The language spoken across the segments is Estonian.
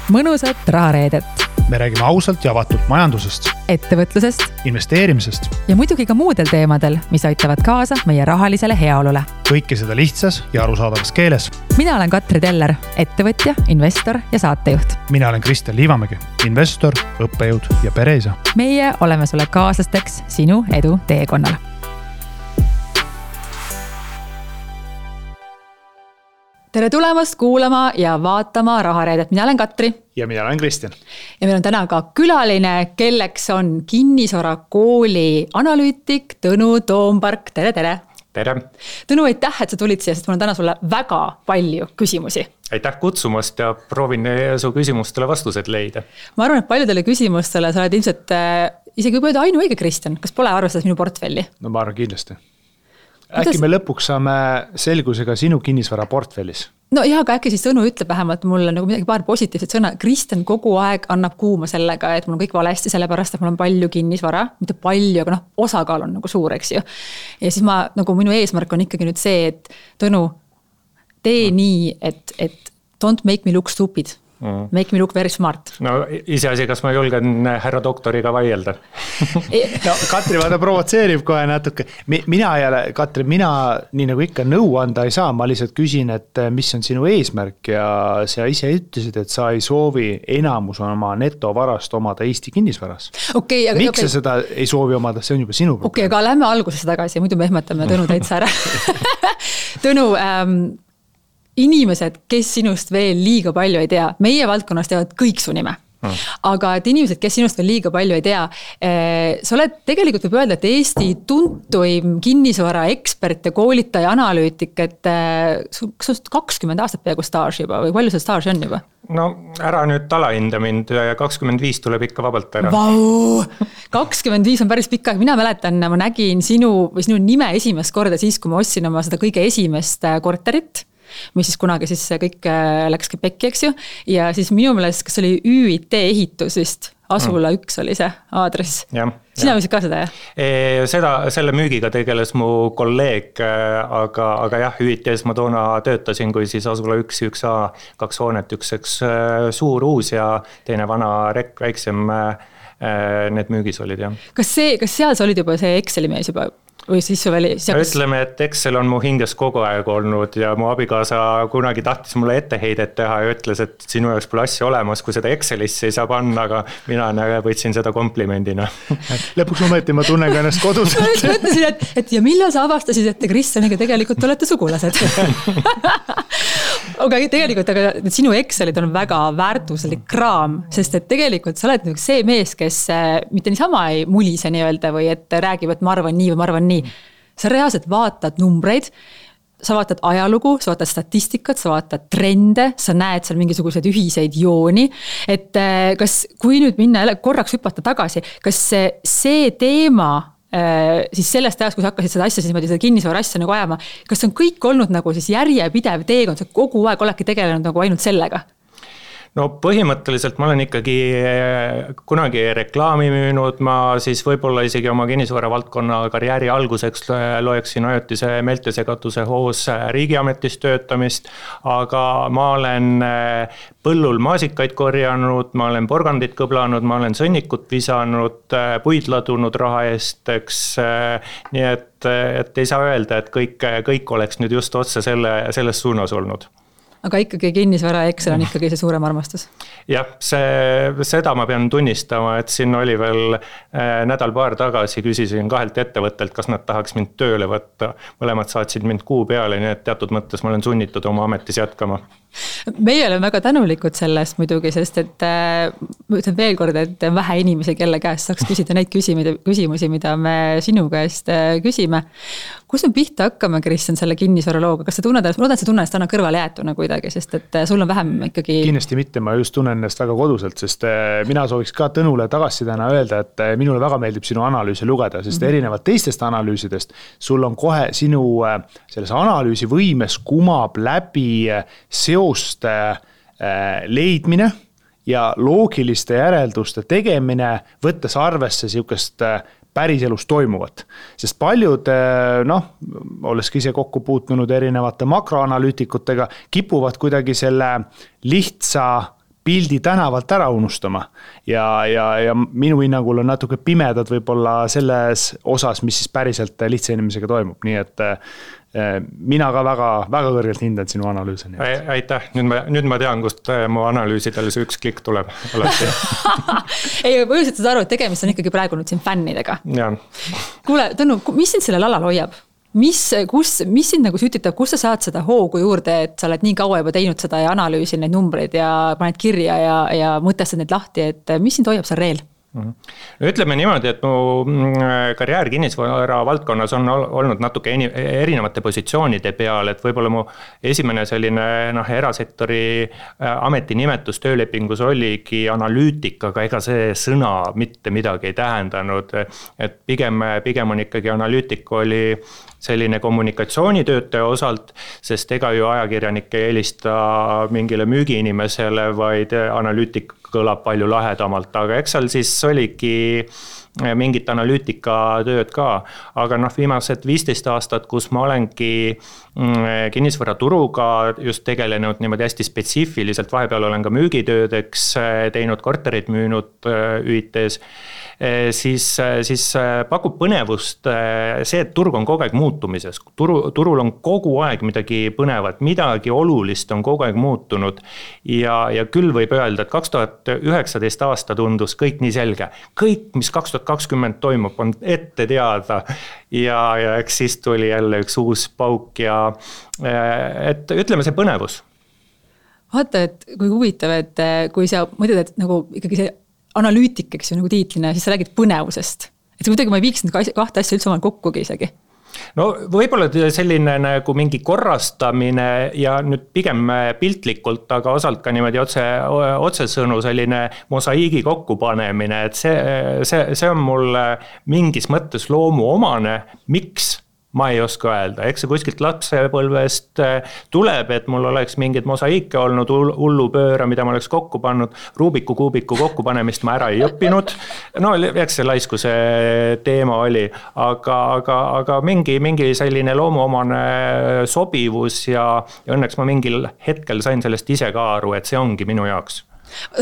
mõnusat rahareedet. Me räägime ausalt ja avatult majandusest, ettevõtlusest investeerimisest ja muidugi ka muudel teemadel, mis aitavad kaasa meie rahalisele heaolule. Kõike seda lihtsas ja arusaadavas keeles. Mina olen Katri Teller, ettevõtja, investor ja saatejuht. Mina olen Kristjan Liivamägi, investor, õppejõud ja pereisa. Meie oleme sulle kaaslasteks sinu edu teekonnal. Tere tulemast kuulama ja vaatama rahareedet. Mina olen Katri. Ja mina olen Kristjan. Ja meil on täna ka külaline, kelleks on Kinnisvara Kooli analüütik Tõnu Toompark. Tere, tere! Tere! Tõnu, aitäh, et sa tulid siia, sest mul on täna sulle väga palju küsimusi. Aitäh kutsumast ja proovin su küsimustele vastused leida. Ma arvan, et paljudele küsimustele sa oled ilmselt isegi võib öelda ainuõige, Kristjan. Kas pole arvestades minu portfelli? No ma arvan kindlasti. Äkki me lõpuks saame selgusega sinu kinnisvara portfellis? No jah, aga äkki siis Tõnu ütleb vähemalt mulle nagu midagi paar positiivset sõna. Kristjan kogu aeg annab kuuma sellega, et mul on kõik valesti, sellepärast, et mul on palju kinnisvara. Mitte palju, aga osakaal on nagu suur, eks ju. Ja siis minu eesmärk on ikkagi nüüd see, et Tõnu, tee nii, et don't make me look stupid. Make me look very smart. No iseasi, kas ma julgen härra doktoriga vaielda? No Katri vaata provotseerib kohe natuke. Mina nii nagu ikka nõu anda ei saa, ma lihtsalt küsin, et mis on sinu eesmärk ja sa ise ütlesid, et sa ei soovi enamus oma netovarast omada Eesti kinnisvaras. Miks sa seda ei soovi omada, see on juba sinu probleem. Aga lähme algusesse tagasi, muidu me ehmatame Tõnu täitsa ära. Tõnu, inimesed, kes sinust veel liiga palju ei tea, meie valdkonnas teavad kõik su nime. Aga et inimesed, kes sinust veel liiga palju ei tea, sa oled tegelikult võib öelda, et Eesti tuntuim kinnisvara ekspert ja koolitaja analüütik, et sul 20 aastat peaaegu staaž juba või palju see staaži on juba? No ära nüüd talahinda mind, 25 tuleb ikka vabalt ära. Vau! 25 on päris pikk aeg. Mina mäletan, ma nägin sinu nime esimest korda siis, kui ma ostsin oma seda kõige esimest korterit, mis siis kunagi siis kõik läkski pekki, eks ju. Ja siis minu meelest, kas oli ÜIT ehitus vist, Asula 1 oli see aadress. Sina võisid ka seda, jah? Selle müügiga tegeles mu kolleeg, aga jah, ÜIT-s ma toona töötasin, kui siis Asula 1, 1A, 2 hoonet, üks suur uus ja teine vana rekk, väiksem need müügis olid, jah. Kas seal sa olid juba see Exceli mees juba? Või siis ütleme, et Excel on mu hinges kogu aeg olnud ja mu abikaasa kunagi tahtis mulle etteheidet teha ja ütles, et sinu jaoks pole asja olemas, kui seda Excelisse ei saa panna, aga mina võtsin seda komplimendina. Lõpuks ometi ma tunnen ka ennast kodus. Ma mõtlesin, et ja millal sa avastasid, et te Kristjaniga tegelikult olete sugulased? Aga tegelikult sinu Excelid on väga väärtuslik kraam, sest et tegelikult sa oled see mees, kes mitte niisama ei mulise nii-öelda või et räägib, et ma arvan nii või ma arvan nii. Sa reaalselt vaatad numbreid, sa vaatad ajalugu, sa vaatad statistikat, sa vaatad trende, sa näed seal mingisuguseid ühiseid jooni, et kui nüüd minna korraks hüpata tagasi, kas see teema siis sellest ajast, kui sa hakkasid seda asja, siis seda kinnisvara asja nagu ajama, kas on kõik olnud nagu siis järjepidev teekond, sa kogu aeg oledki tegelenud nagu ainult sellega? No põhimõtteliselt ma olen ikkagi kunagi reklaami müünud, ma siis võib-olla isegi oma kinnisvara valdkonna karjääri alguseks loeksin ajutise meeltesegatuse hoos riigiametis töötamist, aga ma olen põllul maasikaid korjanud, ma olen porgandit kõblanud, ma olen sõnnikut visanud, puid ladunud raha eest, eks, nii et ei saa öelda, et kõik oleks nüüd just otse selles suunas olnud. Aga ikkagi kinnisvara Excel on ikkagi see suurem armastus? Jah, seda ma pean tunnistama, et siin oli veel nädal-paar tagasi, küsisin 2 ettevõttelt, kas nad tahaks mind tööle võtta. Mõlemad saatsid mind kuu peale, nii et teatud mõttes ma olen sunnitud oma ametis jätkama. Meie oleme väga tänulikud sellest muidugi, sest et ma ütlen veel kord, et vähe inimesi, kelle käest saaks küsida neid küsimusi, mida me sinu käest küsime. Kus me pihta hakkame, Kristjan, selle kinnisvara looga? Kas sa tunned, ma loodan, et sa tunned, et täna kõrvale jäetuna kuidagi, sest et sul on vähem ikkagi... Kindlasti mitte, ma just tunnen ennast väga koduselt, sest mina sooviks ka Tõnule tagasisidena öelda, et minule väga meeldib sinu analüüsi lugeda, sest erinevad teistest analüüsidest sul on kohe sinu selles analüüsi võimes kumab läbi seoste leidmine ja loogiliste järelduste tegemine, võttes arvesse siukest päriselus toimuvat. Sest paljud, olles ise kokku puutunud erinevate makroanalüütikutega, kipuvad kuidagi selle lihtsa pildi tänavalt ära unustama ja minu hinnangul on natuke pimedad võib-olla selles osas, mis siis päriselt lihtsa inimesega toimub, nii et mina ka väga kõrgelt hindan sinu analüüsi. Aitäh, nüüd ma tean, kust mu analüüsidele see üks klikk tuleb alati. Ei, põhjuselt saad aru, et tegemist on ikkagi praegu nüüd siin fännidega. Kuule, Tõnu, mis sind sellel alal hoiab? Mis sind nagu sütitab, kus sa saad seda hoogu juurde, et sa oled nii kaua juba teinud seda ja analüüsin neid numbreid ja paned kirja ja mõtestad neid lahti, et mis sind hoiab seal reel? Ütleme niimoodi, et mu karjäär kinnisvara valdkonnas on olnud natuke erinevate positsioonide peal, et võib-olla mu esimene selline erasektori ametinimetus töölepingus oligi analüütik, aga ega see sõna mitte midagi ei tähendanud, et pigem on ikkagi analüütik oli selline kommunikatsioonitöötaja osalt, sest ega ju ajakirjanik ei helista mingile müügiinimesele, vaid analüütik kõlab palju lahedamalt, aga eks seal siis oligi mingit analüütikatööd ka, aga viimased 15 aastat, kus ma olengi kinnisvaraturuga just tegelenud niimoodi hästi spetsiifiliselt, vahepeal olen ka müügitöödeks teinud, korterid müünud ÜIT-s, siis pakub põnevust see, et turg on kogu aeg muutumises. Turul on kogu aeg midagi põnevat, midagi olulist on kogu aeg muutunud ja küll võib öelda, et 2019 aasta tundus kõik nii selge. Kõik, mis 2020 toimub, on ette teada ja eks siis tuli jälle üks uus pauk ja et ütleme see põnevus. Vaata, et kui huvitav, et kui sa mõtled, et nagu ikkagi see analüütik, eks ju, nagu tiitlina, siis sa räägid põnevusest. Et kuidagi ma ei viiks need kahte asja üldse omal kokkugi isegi. No võib-olla selline nagu mingi korrastamine ja nüüd pigem piltlikult, aga osalt ka niimoodi otsesõnu selline mosaiigi kokkupanemine, et see on mul mingis mõttes loomuomane, miks? Ma ei oska öelda, eks see kuskilt lapsepõlvest tuleb, et mul oleks mingid mosaiike olnud, hullupööra, mida ma oleks kokku pannud, Rubiku kuubiku kokkupanemist ma ära ei õppinud, no eks see laiskuse teema oli, aga mingi selline loomuomane sobivus ja õnneks ma mingil hetkel sain sellest ise ka aru, et see ongi minu jaoks.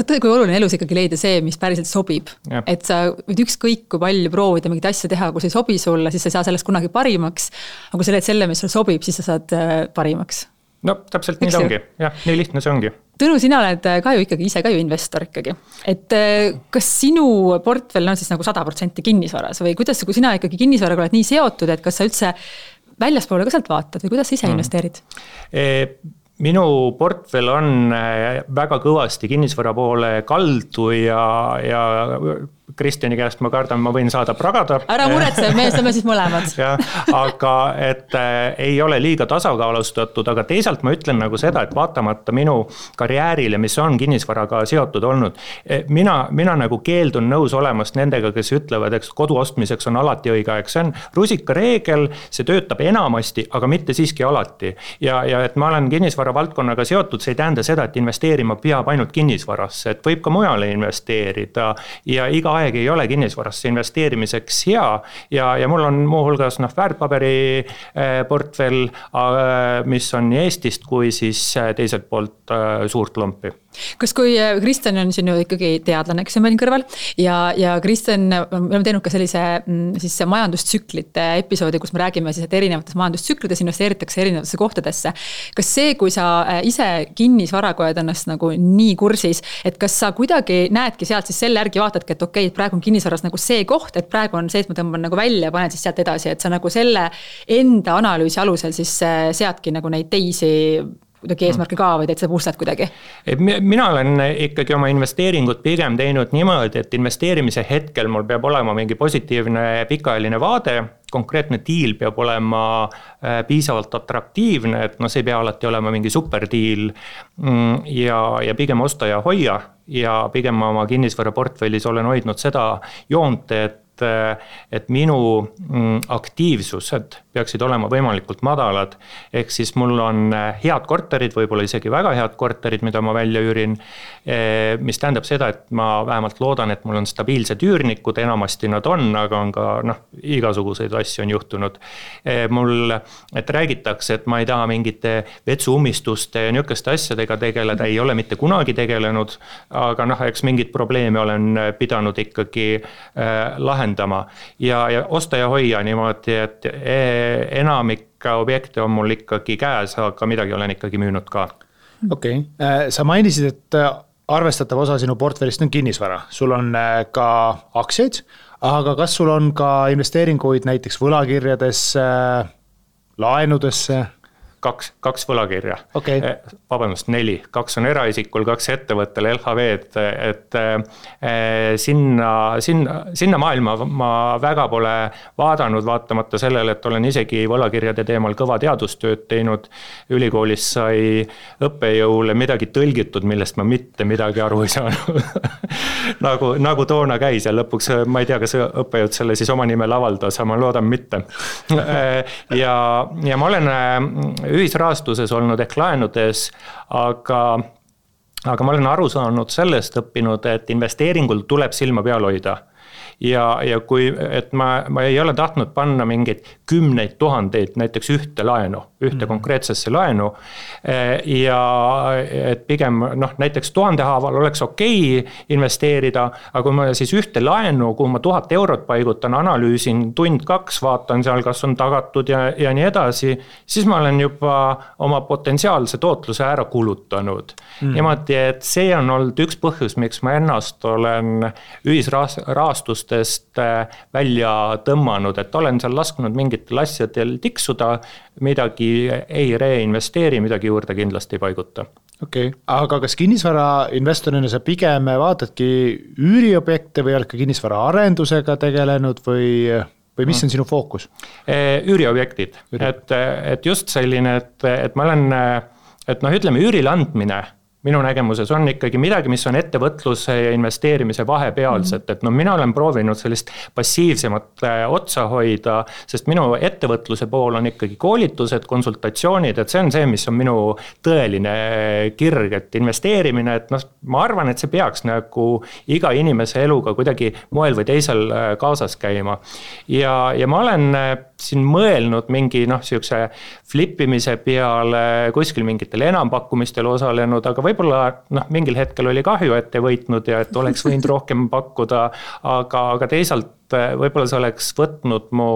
Kui oluline elus ikkagi leida see, mis päriselt sobib. Ja. Et sa võid ükskõik kui palju proovida mingit asja teha, kui see ei sobi sulle, siis sa ei saa sellest kunagi parimaks. Aga kui sa leid selle, mis sulle sobib, siis sa saad parimaks. No täpselt nii ongi. Jah, nii lihtne see ongi. Tõnu, sina oled ka ju ikkagi ise ka ju investor ikkagi. Et kas sinu portfell on siis nagu 100% kinnisvaras või kuidas, kui sina ikkagi kinnisvaraga oled nii seotud, et kas sa üldse väljaspoole ka sealt vaatad või kuidas sa ise investeerid? Minu portfell on väga kõvasti kinnisvara poole kaldu ja Kristjani käest ma kardan, ma võin saada pragada. Ära muretse, me saame siis mõlemad. Ja, aga et ei ole liiga tasakaalustatud, aga teisalt ma ütlen nagu seda, et vaatamata minu karjäärile, mis on kinnisvaraga seotud olnud, mina nagu keeldun nõus olemast nendega, kes ütlevad, et kodu ostmiseks on alati õige aeg. See on rusika reegel, see töötab enamasti, aga mitte siiski alati. Ja et ma olen kinnisvara valdkonnaga seotud, see ei tähenda seda, et investeerima peab ainult kinnisvarasse, et võib ka mujale investeerida ja iga aeg ei ole kinnisvarasse investeerimiseks hea ja mul on muuhulgas väärtpaberi portfell, mis on nii Eestist kui siis teiselt poolt suurt lompi. Kas kui Kristjan on sinu ikkagi teadlane, kes on meil kõrval ja Kristjan, me oleme teinud ka sellise siis majandustsüklite episoodi, kus me räägime siis, et erinevates majandustsüklides investeeritakse erinevatesse kohtadesse. Kas see, kui sa ise kinnisvaraga oled ennast nagu nii kursis, et kas sa kuidagi näedki sealt siis selle järgi vaatadki, et okei, praegu on kinnisvaras nagu see koht, et praegu on see, et ma tõmban nagu välja ja panen siis sealt edasi, et sa nagu selle enda analüüsi alusel siis seadki nagu neid teisi kuidagi eesmärke ka või teed seda puustad kuidagi? Mina olen ikkagi oma investeeringut pigem teinud niimoodi, et investeerimise hetkel mul peab olema mingi positiivne pikaajaline vaade, konkreetne diil peab olema piisavalt atraktiivne, et see ei pea alati olema mingi superdiil ja pigem osta ja hoia ja pigem oma kinnisvara portfellis olen hoidnud seda joont, et et minu aktiivsused peaksid olema võimalikult madalad. Ehk siis mul on head korterid, võib-olla isegi väga head korterid, mida ma välja üürin, mis tähendab seda, et ma vähemalt loodan, et mul on stabiilsed üürnikud, enamasti nad on, aga on ka igasuguseid asju on juhtunud. Et räägitakse, et ma ei taha mingite vetsuummistuste ja niisuguste asjadega tegeleda, ei ole mitte kunagi tegelenud, aga eks mingid probleeme olen pidanud ikkagi lahendama ja osta ja hoia niimoodi, et enamik objekte on mul ikkagi käes, aga midagi olen ikkagi müünud ka. Okei. Sa mainisid, et arvestatav osa sinu portfellist on kinnisvara. Sul on ka aktsiaid, aga kas sul on ka investeeringuid näiteks võlakirjadesse, laenudesse? Kaks võlakirja. Okay. Vabandust, 4. 2 on eraisikul, 2 ettevõttel, LHV-d, et sinna maailma ma väga pole vaadanud, vaatamata sellele, et olen isegi võlakirjade teemal kõva teadustööd teinud. Ülikoolis sai õppejõule midagi tõlgitud, millest ma mitte midagi aru ei saanud. nagu toona käis ja lõpuks ma ei tea, kas õppejõud selle siis oma nimel avaldas, aga ma loodan mitte. Ja ma olen ühisrahastuses olnud ehk laenudes, aga ma olen aru saanud sellest õppinud, et investeeringul tuleb silma peal hoida. Ja kui, et ma ei ole tahtnud panna mingeid 10 000 näiteks ühte konkreetsesse laenu ja et pigem näiteks 1000 haaval oleks okei investeerida, aga kui ma siis ühte laenu, kuhu ma 1000 eurot paigutan, analüüsin tund-2, vaatan seal, kas on tagatud ja nii edasi, siis ma olen juba oma potentsiaalse tootluse ära kulutanud. Niimoodi, et see on olnud üks põhjus, miks ma ennast olen ühisrahastust välja tõmmanud, et olen seal lasknud mingitel asjadel tiksuda, midagi ei reinvesteeri, midagi juurde kindlasti ei paiguta. Okei. Aga kas kinnisvara investorina sa pigem vaatadki üüriobjekte või oled ka kinnisvara arendusega tegelenud või mis on sinu fookus? Üüriobjektid. Et just selline, et ma olen, ütleme üürile andmine minu nägemuses on ikkagi midagi, mis on ettevõtluse ja investeerimise vahepealset, et mina olen proovinud sellist passiivsemat otsa hoida, sest minu ettevõtluse pool on ikkagi koolitused, konsultatsioonid, et see on see, mis on minu tõeline kirg, et investeerimine, et ma arvan, et see peaks nagu iga inimese eluga kuidagi moel või teisel kaasas käima. Ja ma olen siin mõelnud mingi siukse flippimise peale, kuskil mingitel enampakkumistel osalenud, aga võib-olla mingil hetkel oli kahju, et ei võitnud ja et oleks võinud rohkem pakkuda, aga teisalt võib-olla see oleks võtnud mu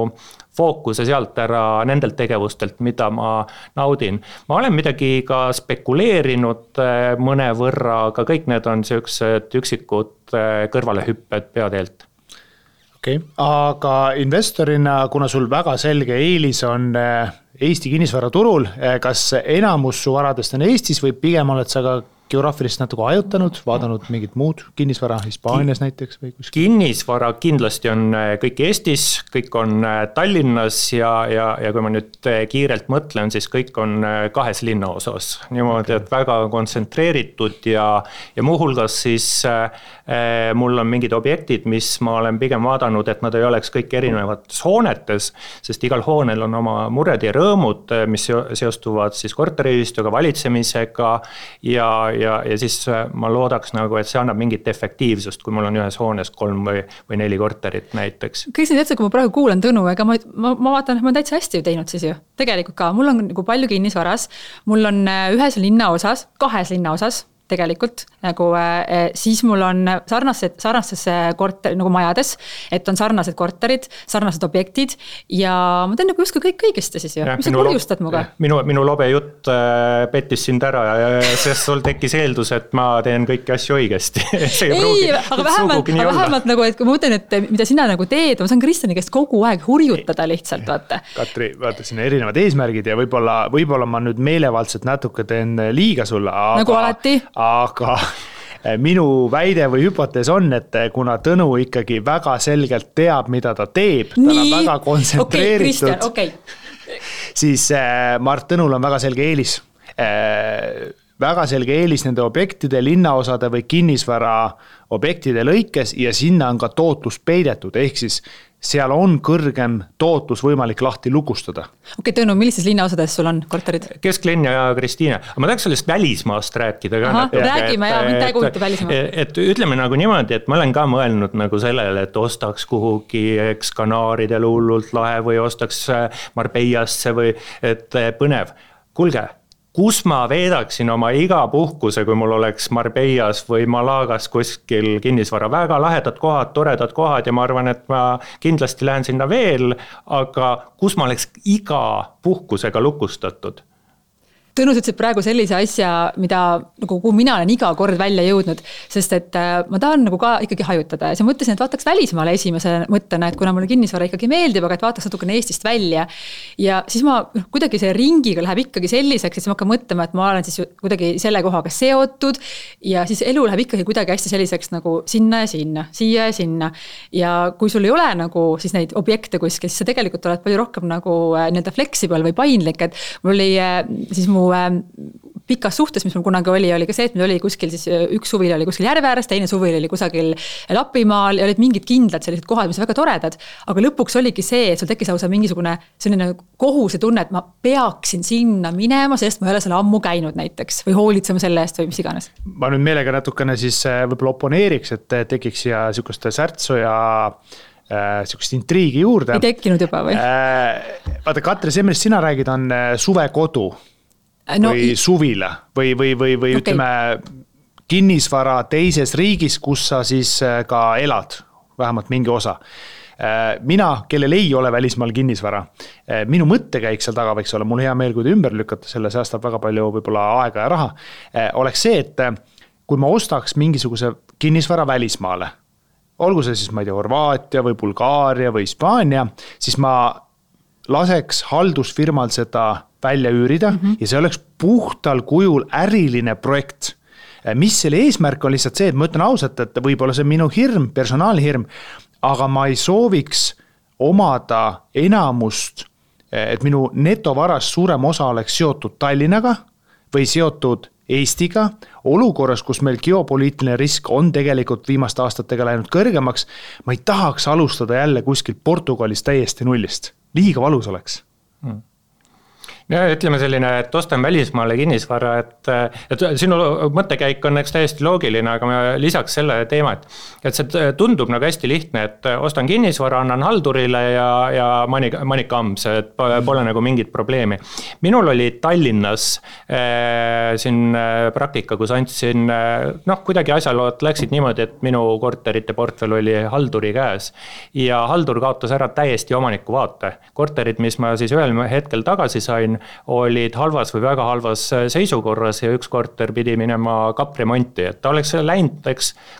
fookuse sealt ära nendelt tegevustelt, mida ma naudin. Ma olen midagi ka spekuleerinud mõne võrra, aga kõik need on sellised üksikud kõrvalehüpped peateelt. Okei, aga investorina, kuna sul väga selge eelis on Eesti kinnisvaraturul, kas enamus su varadest on Eestis või pigem oled sa ka geograafilist natuke ajutanud, vaadanud mingit muud kinnisvara Hispaanias näiteks või kuskil? Kinnisvara kindlasti on kõik Eestis, kõik on Tallinnas ja kui ma nüüd kiirelt mõtlen, siis kõik on 2 linnaosas. Niimoodi, et väga kontsentreeritud ja muuhulgas siis mul on mingid objektid, mis ma olen pigem vaadanud, et nad ei oleks kõik erinevates hoonetes, sest igal hoonel on oma mured ja rõõmud, mis seostuvad siis korteriühistuga, valitsemisega ja siis ma loodaks et see annab mingit efektiivsust, kui mul on ühes hoones 3 või 4 korterit näiteks. Kõik see täitsa, kui ma praegu kuulan Tõnu, ega ma vaatan, et ma olen täitsa hästi teinud siis ju. Tegelikult ka, mul on palju kinnisvaras, mul on 1 linnaosas, 2 linnaosas tegelikult, siis mul on sarnastes majades, et on sarnased korterid, sarnased objektid ja ma teen justkui kõik õigesti siis ju, mis sa kurjustad muga? Minu lobe jutt pettis sind ära, sest sul tekkis eeldus, et ma teen kõiki asju õigesti. aga vähemalt et kui ma mõtlen, et mida sina teed, ma saan Kristjani käest kogu aeg hurjutada lihtsalt, vaata. Katri, vaata siin erinevad eesmärgid ja võib-olla ma nüüd meelevaldselt natuke teen liiga sulle, nagu alati. Aga minu väide või hüpotees on, et kuna Tõnu ikkagi väga selgelt teab, mida ta teeb, ta on väga kontsentreeritud, siis Mart Tõnul on väga selge eelis. väga selge eelis nende objektide, linnaosade või kinnisvara objektide lõikes ja sinna on ka tootlus peidetud, ehk siis seal on kõrgem tootlus võimalik lahti lukustada. Okei, Tõnu, millistes linnaosades sul on korterid? Kesklinn ja Kristiine. Aga ma tahaks sellest välismaast rääkida ka. Räägime ja mind ei kujuta välismaa. Et ütleme nagu niimoodi, et ma olen ka mõelnud nagu sellele, et ostaks kuhugi Kanaaridel hullult lahe või ostaks Marbeiasse või et põnev. Kuulge, kus ma veedaksin oma iga puhkuse, kui mul oleks Marbeias või Malagas kuskil kinnisvara, väga lahedad kohad, toredad kohad ja ma arvan, et ma kindlasti lähen sinna veel, aga kus ma oleks iga puhkusega lukustatud? Tõnus ütles praegu sellise asja, mida nagu kuhu mina olen iga kord välja jõudnud, sest et ma tahan nagu ka ikkagi hajutada ja siis mõtlesin, et vaataks välismaale esimese mõttena, et kuna mulle kinnisvara ikkagi meeldib, aga et vaataks natukene Eestist välja ja siis ma kuidagi see ringiga läheb ikkagi selliseks, et siis ma hakkan mõtlema, et ma olen siis kuidagi selle kohaga seotud ja siis elu läheb ikkagi kuidagi hästi selliseks nagu sinna ja sinna, siia ja sinna ja kui sul ei ole nagu siis neid objekte kuskil, siis sa tegelikult oled palju rohkem nagu nii-öelda flexible või paindlik, et mul oli siis mu pikas suhtes, mis mul kunagi oli ka see, et meil oli kuskil siis üks suvil oli kuskil järve ääres, teine suvil oli kusagil Lapimaal ja olid mingid kindlad sellised kohad, mis on väga toredad, aga lõpuks oligi see, et sul tekkis lausa mingisugune selline kohuse tunne, et ma peaksin sinna minema, sest ma ei ole seal ammu käinud näiteks või hoolitsema selle eest või mis iganes. Ma nüüd meelega natukene siis võib-olla oponeeriks, et tekiks ja sihukest särtsu ja sihukest intriigi juurde. Ei tekkinud juba või? Vaata, Katri, see, millest sina räägid, on suvekodu. Või suvila või okay. Ütleme kinnisvara teises riigis, kus sa siis ka elad, vähemalt mingi osa. Mina, kellel ei ole välismaal kinnisvara, minu mõttekäik seal taga võiks olla, mul hea meel, kui te ümber lükata, selle säästab väga palju võib-olla aega ja raha, oleks see, et kui ma ostaks mingisuguse kinnisvara välismaale, olgu see siis, ma ei tea, Horvaatia või Bulgaaria või Hispaania, siis ma laseks haldusfirmal seda välja üürida ja see oleks puhtal kujul äriline projekt. Mis selle eesmärk on lihtsalt see, et ma ütlen ausalt, et võib-olla see on minu hirm, personaalne hirm, aga ma ei sooviks omada enamust, et minu netovarast suurem osa oleks seotud Tallinnaga või seotud Eestiga, olukorras, kus meil geopoliitiline risk on tegelikult viimaste aastatega läinud kõrgemaks, ma ei tahaks alustada jälle kuskil Portugalis täiesti nullist. Liiga valus oleks. Ja ütleme selline, et ostan välismaale kinnisvara, et sinu mõttekäik on täiesti loogiline, aga ma lisaks selle teema, et see tundub nagu hästi lihtne, et ostan kinnisvara, annan haldurile ja manika amps, et pole nagu mingit probleemi. Minul oli Tallinnas siin praktika, kus andsin, kuidagi asjalood läksid niimoodi, et minu korterite portfel oli halduri käes ja haldur kaotas ära täiesti omaniku vaate. Korterid, mis ma siis ühel hetkel tagasi sain, olid halvas või väga halvas seisukorras ja üks korter pidi minema kapremonti, et ta oleks läinud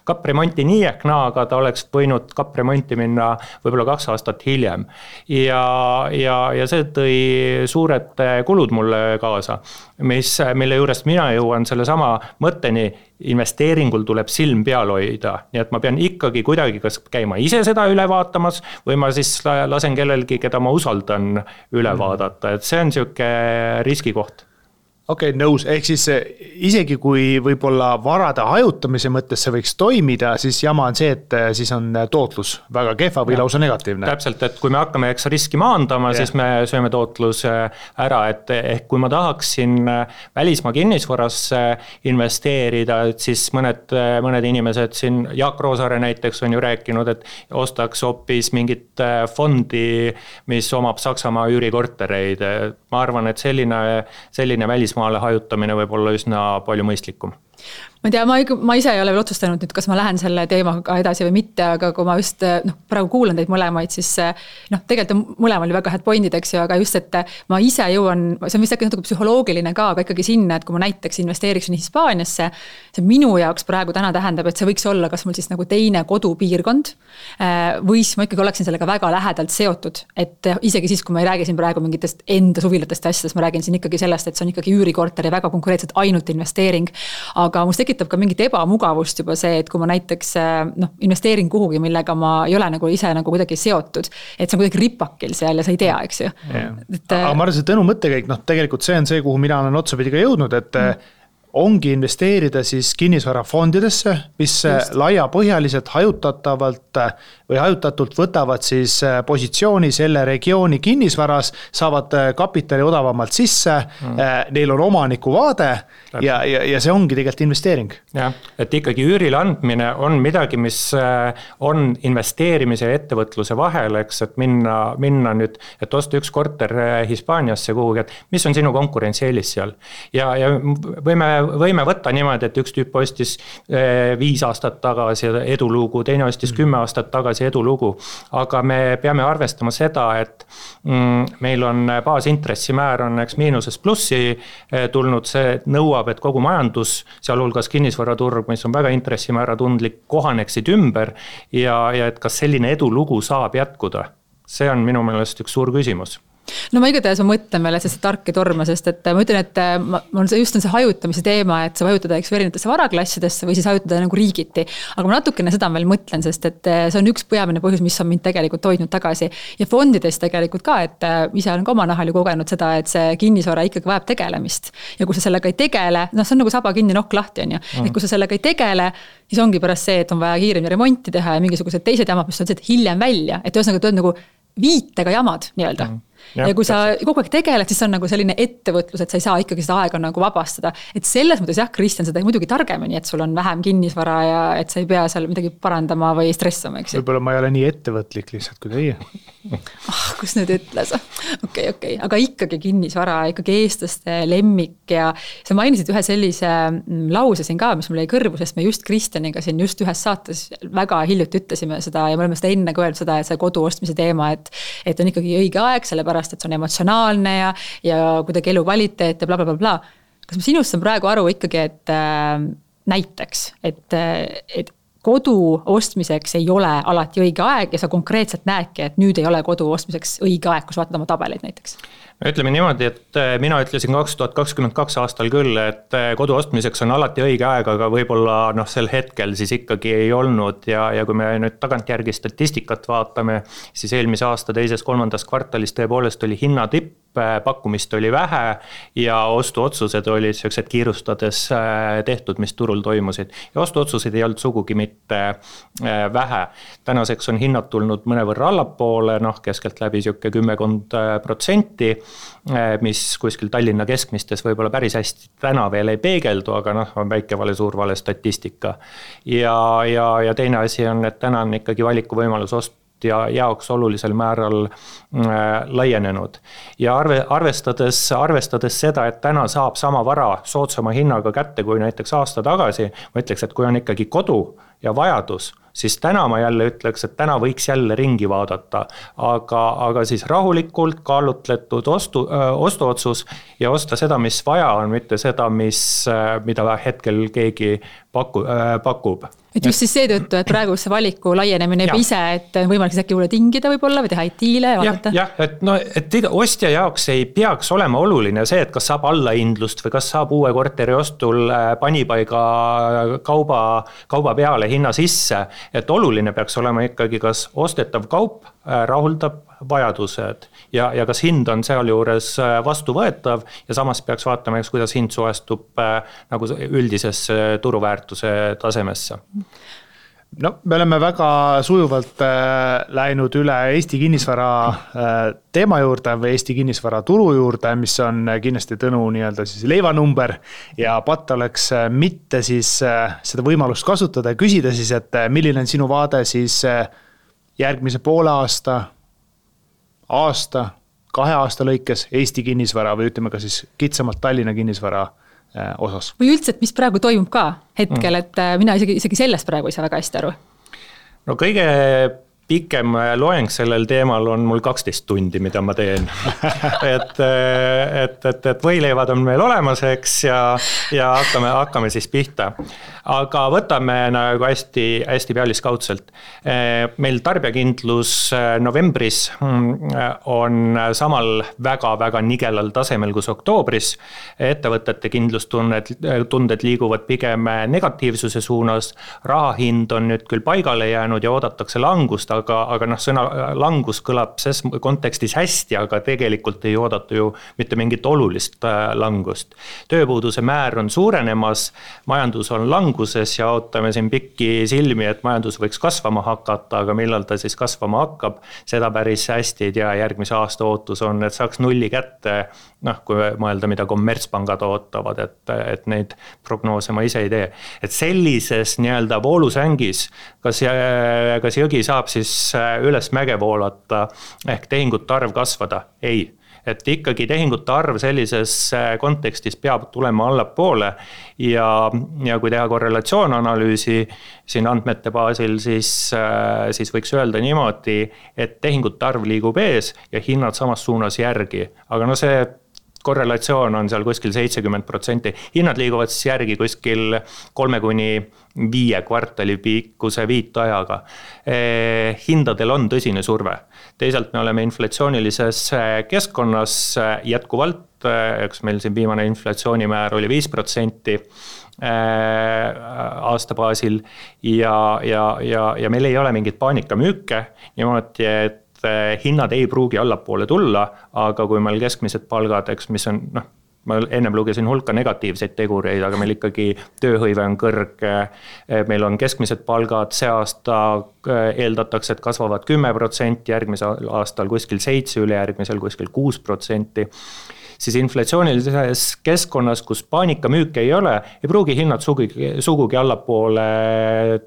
kapremonti nii ehk naa, aga ta oleks võinud kapremonti minna võib-olla 2 aastat hiljem ja see tõi suured kulud mulle kaasa, mille juurest mina jõuan selle sama mõtteni, investeeringul tuleb silm peal hoida, nii et ma pean ikkagi kuidagi kas käima ise seda üle vaatamas või ma siis lasen kellelgi, keda ma usaldan üle vaadata, et see on siuke riskikoht. Okei, nõus, ehk siis isegi kui võib-olla varade hajutamise mõttes see võiks toimida, siis jama on see, et siis on tootlus väga kehva või lausa negatiivne. Täpselt, et kui me hakkame riski maandama, siis me sööme tootluse ära, et ehk kui ma tahaksin välismaa kinnisvarasse investeerida, et siis mõned inimesed siin, Jaak Roosaare näiteks on ju rääkinud, et ostaks hoopis mingit fondi, mis omab Saksamaa üürikortereid. Ma arvan, et selline välismaale hajutamine võib olla üsna palju mõistlikum. Ma ei tea, ma ise ei ole veel otsustanud nüüd, kas ma lähen selle teemaga edasi või mitte, aga kui ma just praegu kuulan teid mõlemaid, siis tegelikult mõlema oli väga head pointid, eks ju, aga just, et ma ise jõuan, see on vist äkki natuke psühholoogiline ka, aga ikkagi sinna, et kui ma näiteks investeeriksin Hispaaniasse, see minu jaoks praegu täna tähendab, et see võiks olla kas mul siis nagu teine kodupiirkond või siis ma ikkagi oleksin sellega väga lähedalt seotud, et isegi siis, kui ma ei räägi siin praegu mingitest enda suvilatest asjadest, ma räägin siin ikkagi sellest, et see on ikkagi üürikorter ja väga konkreetselt ainult investeering, aga must tekitab ka mingit ebamugavust juba see, et kui ma näiteks investeerin kuhugi, millega ma ei ole nagu ise nagu kuidagi seotud, et see on kuidagi ripakil seal ja sa ei tea, eks ju. Aga ma arvan, see Tõnu mõttekäik, tegelikult see on see, kuhu mina olen otsapidi ka jõudnud, et ongi investeerida siis kinnisvarafondidesse, mis laiapõhjaliselt hajutatult võtavad siis positsiooni selle regiooni kinnisvaras, saavad kapitali odavamalt sisse, neil on omaniku vaade ja see ongi tegelikult investeering. Jah, et ikkagi üürile andmine on midagi, mis on investeerimise ja ettevõtluse vahel, eks, et minna nüüd, et osta üks korter Hispaaniasse kuhugi, et mis on sinu konkurentsieelis seal. Ja võime võtta niimoodi, et üks tüüp ostis 5 aastat tagasi edulugu, teine ostis 10 aastat tagasi edulugu, aga me peame arvestama seda, et meil on baasintressimäär on eks miinusest plussi tulnud, see nõuab, et kogu majandus, sealhulgas kinnisvaraturg, mis on väga intressimäära tundlik, kohaneksid ümber ja et kas selline edulugu saab jätkuda. See on minu meelest üks suur küsimus. No ma igatahes mõtlen meile see tark ja torma, sest et ma ütlen, et on see hajutamise teema, et sa vajutada erinevatesse varaklassidesse või siis hajutada nagu riigiti. Aga ma natukene seda veel mõtlen, sest et see on üks peamine põhjus, mis on mind tegelikult hoidnud tagasi. Ja fondides tegelikult ka, et ise olen ka oma nahal ju kogenud seda, et see kinnisvara ikkagi vajab tegelemist. Ja kui sa sellega ei tegele, see on nagu saba kinni nokk lahti on ju. Et kui sa sellega ei tegele, siis ongi pärast see, et on vaja kiiremini remonti teha ja mingisugused teised jamad, mis on see, et hiljem välja. Et ühesõnaga tuled nagu viitega jamad nii-öelda. Ja kui sa kogu aeg tegeled, siis on nagu selline ettevõtlus, et sa ei saa ikkagi seda aega nagu vabastada. Et selles mõttes jah, Kristjan, seda muidugi targemini, et sul on vähem kinnisvara ja et sa ei pea seal midagi parandama või stressama, eks ju. Võib-olla ma ei ole nii ettevõtlik lihtsalt kui teie. Kus nüüd ütles? Okei. Aga ikkagi kinnisvara, ikkagi eestlaste lemmik ja sa mainisid ühe sellise lause siin ka, mis mul jäi kõrvu, sest me just Kristjaniga siin just ühes saates väga hiljuti ütlesime seda ja me oleme seda enne öelnud seda, et see kodu ostmise teema, et on ikkagi õige aeg, sellepärast, et see on emotsionaalne ja kuidagi elu kvaliteet ja bla. Kas ma sinust saan praegu aru ikkagi, et näiteks, et kodu ostmiseks ei ole alati õige aeg ja sa konkreetselt näedki, et nüüd ei ole kodu ostmiseks õige aeg, kus vaatad oma tabeleid näiteks? Ütleme niimoodi, et mina ütlesin 2022 aastal küll, et kodu ostmiseks on alati õige aeg, aga võib-olla sel hetkel siis ikkagi ei olnud ja kui me nüüd tagantjärgi statistikat vaatame, siis eelmise aasta 2.–3. kvartalis tõepoolest oli hinnatipp, pakkumist oli vähe ja ostuotsused olid sellised kiirustades tehtud, mis turul toimusid. Ja ostuotsused ei olnud sugugi mitte vähe. Tänaseks on hinnad tulnud mõnevõrra allapoole, keskelt läbi 10%, mis kuskil Tallinna keskmistes võib-olla päris hästi täna veel ei peegeldu, aga on väike vale, suur vale statistika. Ja teine asi on, et täna on ikkagi valikuvõimalus ja jaoks olulisel määral laienenud. Ja arvestades seda, et täna saab sama vara soodsama hinnaga kätte kui näiteks aasta tagasi, ma ütleks, et kui on ikkagi kodu ja vajadus, siis täna ma jälle ütleks, et täna võiks jälle ringi vaadata, aga siis rahulikult kaalutletud ostuotsus ja osta seda, mis vaja on, mitte seda, mida hetkel keegi pakub. Et just siis seetõttu, et praegu see valiku laienemine ise, et võimalik äkki juurde tingida võib-olla või teha IT-le ja vaadata? Jah, et ostja jaoks ei peaks olema oluline see, et kas saab allahindlust või kas saab uue korteri ostul panipaiga kauba peale hinna sisse, et oluline peaks olema ikkagi, kas ostetav kaup rahuldab vajadused ja kas hind on seal juures vastuvõetav ja samas peaks vaatama, kuidas hind suestub nagu üldisesse turuväärtuse tasemesse. Me oleme väga sujuvalt läinud üle Eesti kinnisvara teema juurde või Eesti kinnisvara turu juurde, mis on kindlasti Tõnu nii-öelda siis leivanumber ja patt oleks mitte siis seda võimalust kasutada ja küsida siis, et milline on sinu vaade siis järgmise poole aasta, 2 aasta lõikes Eesti kinnisvara või ütleme ka siis kitsamalt Tallinna kinnisvara osas. Või üldse, et mis praegu toimub ka hetkel, et mina isegi sellest praegu ei saa väga hästi aru. No kõige pikem loeng sellel teemal on mul 12 tundi, mida ma teen. et võileivad on meil olemas, eks, ja hakkame siis pihta. Aga võtame nagu hästi pealiskaudselt. Meil tarbijakindlus novembris on samal väga nigelal tasemel kus oktoobris. Ettevõtete kindlustunded liiguvad pigem negatiivsuse suunas. Rahahind on nüüd küll paigale jäänud ja oodatakse langust, aga sõna langus kõlab ses kontekstis hästi, aga tegelikult ei oodata ju mitte mingit olulist langust. Tööpuuduse määr on suurenemas, majandus on languses ja ootame siin pikki silmi, et majandus võiks kasvama hakata, aga millal ta siis kasvama hakkab, seda päris hästi ei tea. Järgmise aasta ootus on, et saaks nulli kätte, kui mõelda, mida kommertspangad ootavad, et neid prognoose ma ise ei tee. Et sellises nii-öelda voolusängis, kas jõgi saab siis üles mäge voolata ehk tehingute arv kasvada? Ei. Et ikkagi tehingute arv sellises kontekstis peab tulema allapoole ja kui teha korrelatsioonanalüüsi siin andmete baasil, siis võiks öelda niimoodi, et tehingute arv liigub ees ja hinnad samas suunas järgi. Aga see korrelatsioon on seal kuskil 70%. Hinnad liiguvad siis järgi kuskil 3-5 kvartali pikkuse viitajaga. Hindadel on tõsine surve. Teisalt me oleme inflatsioonilises keskkonnas jätkuvalt, eks meil siin viimane inflatsioonimäär oli 5% aasta baasil ja meil ei ole mingit paanikamüüke, niimoodi, et hinnad ei pruugi allapoole tulla, aga kui meil keskmised palgad, eks mis on, ma ennem lugesin hulka negatiivseid tegureid, aga meil ikkagi tööhõive on kõrge, meil on keskmised palgad, see aasta eeldatakse, et kasvavad 10%, järgmisel aastal kuskil 7%, ülejärgmisel kuskil 6%, siis inflatsioonilises keskkonnas, kus paanikamüüke ei ole, ei pruugi hinnad sugugi allapoole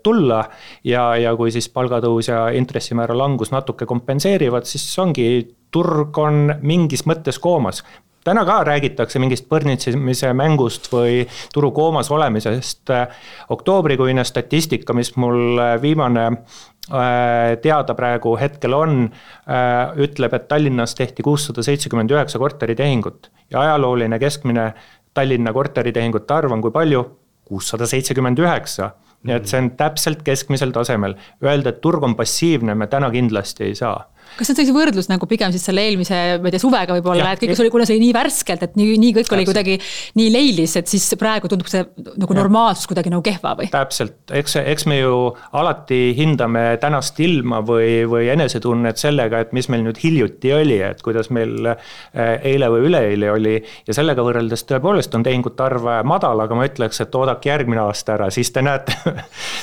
tulla ja kui siis palgatõus ja intressimäära langus natuke kompenseerivad, siis ongi, turg on mingis mõttes koomas. Täna ka räägitakse mingist põrnitsimise mängust või turu koomas olemisest. Oktoobrikuine statistika, mis mul viimane teada praegu hetkel on, ütleb, et Tallinnas tehti 679 korteritehingut ja ajalooline keskmine Tallinna korteritehingute arv on kui palju? 679. Nii et see on täpselt keskmisel tasemel. Öelda, et turg on passiivne, me täna kindlasti ei saa. Kas see on sellise võrdlus nagu pigem siis selle eelmise suvega võib-olla, et kõik oli, kuna see oli nii värskelt, et nii kõik oli kuidagi nii leilis, et siis praegu tundub see nagu normaalsus kuidagi nagu kehva või? Täpselt, eks me ju alati hindame tänast ilma või enesetunnet sellega, et mis meil nüüd hiljuti oli, et kuidas meil eile või üleeile oli ja sellega võrreldes tõepoolest on tehingute arv madal, aga ma ütleks, et oodake järgmine aasta ära, siis te näete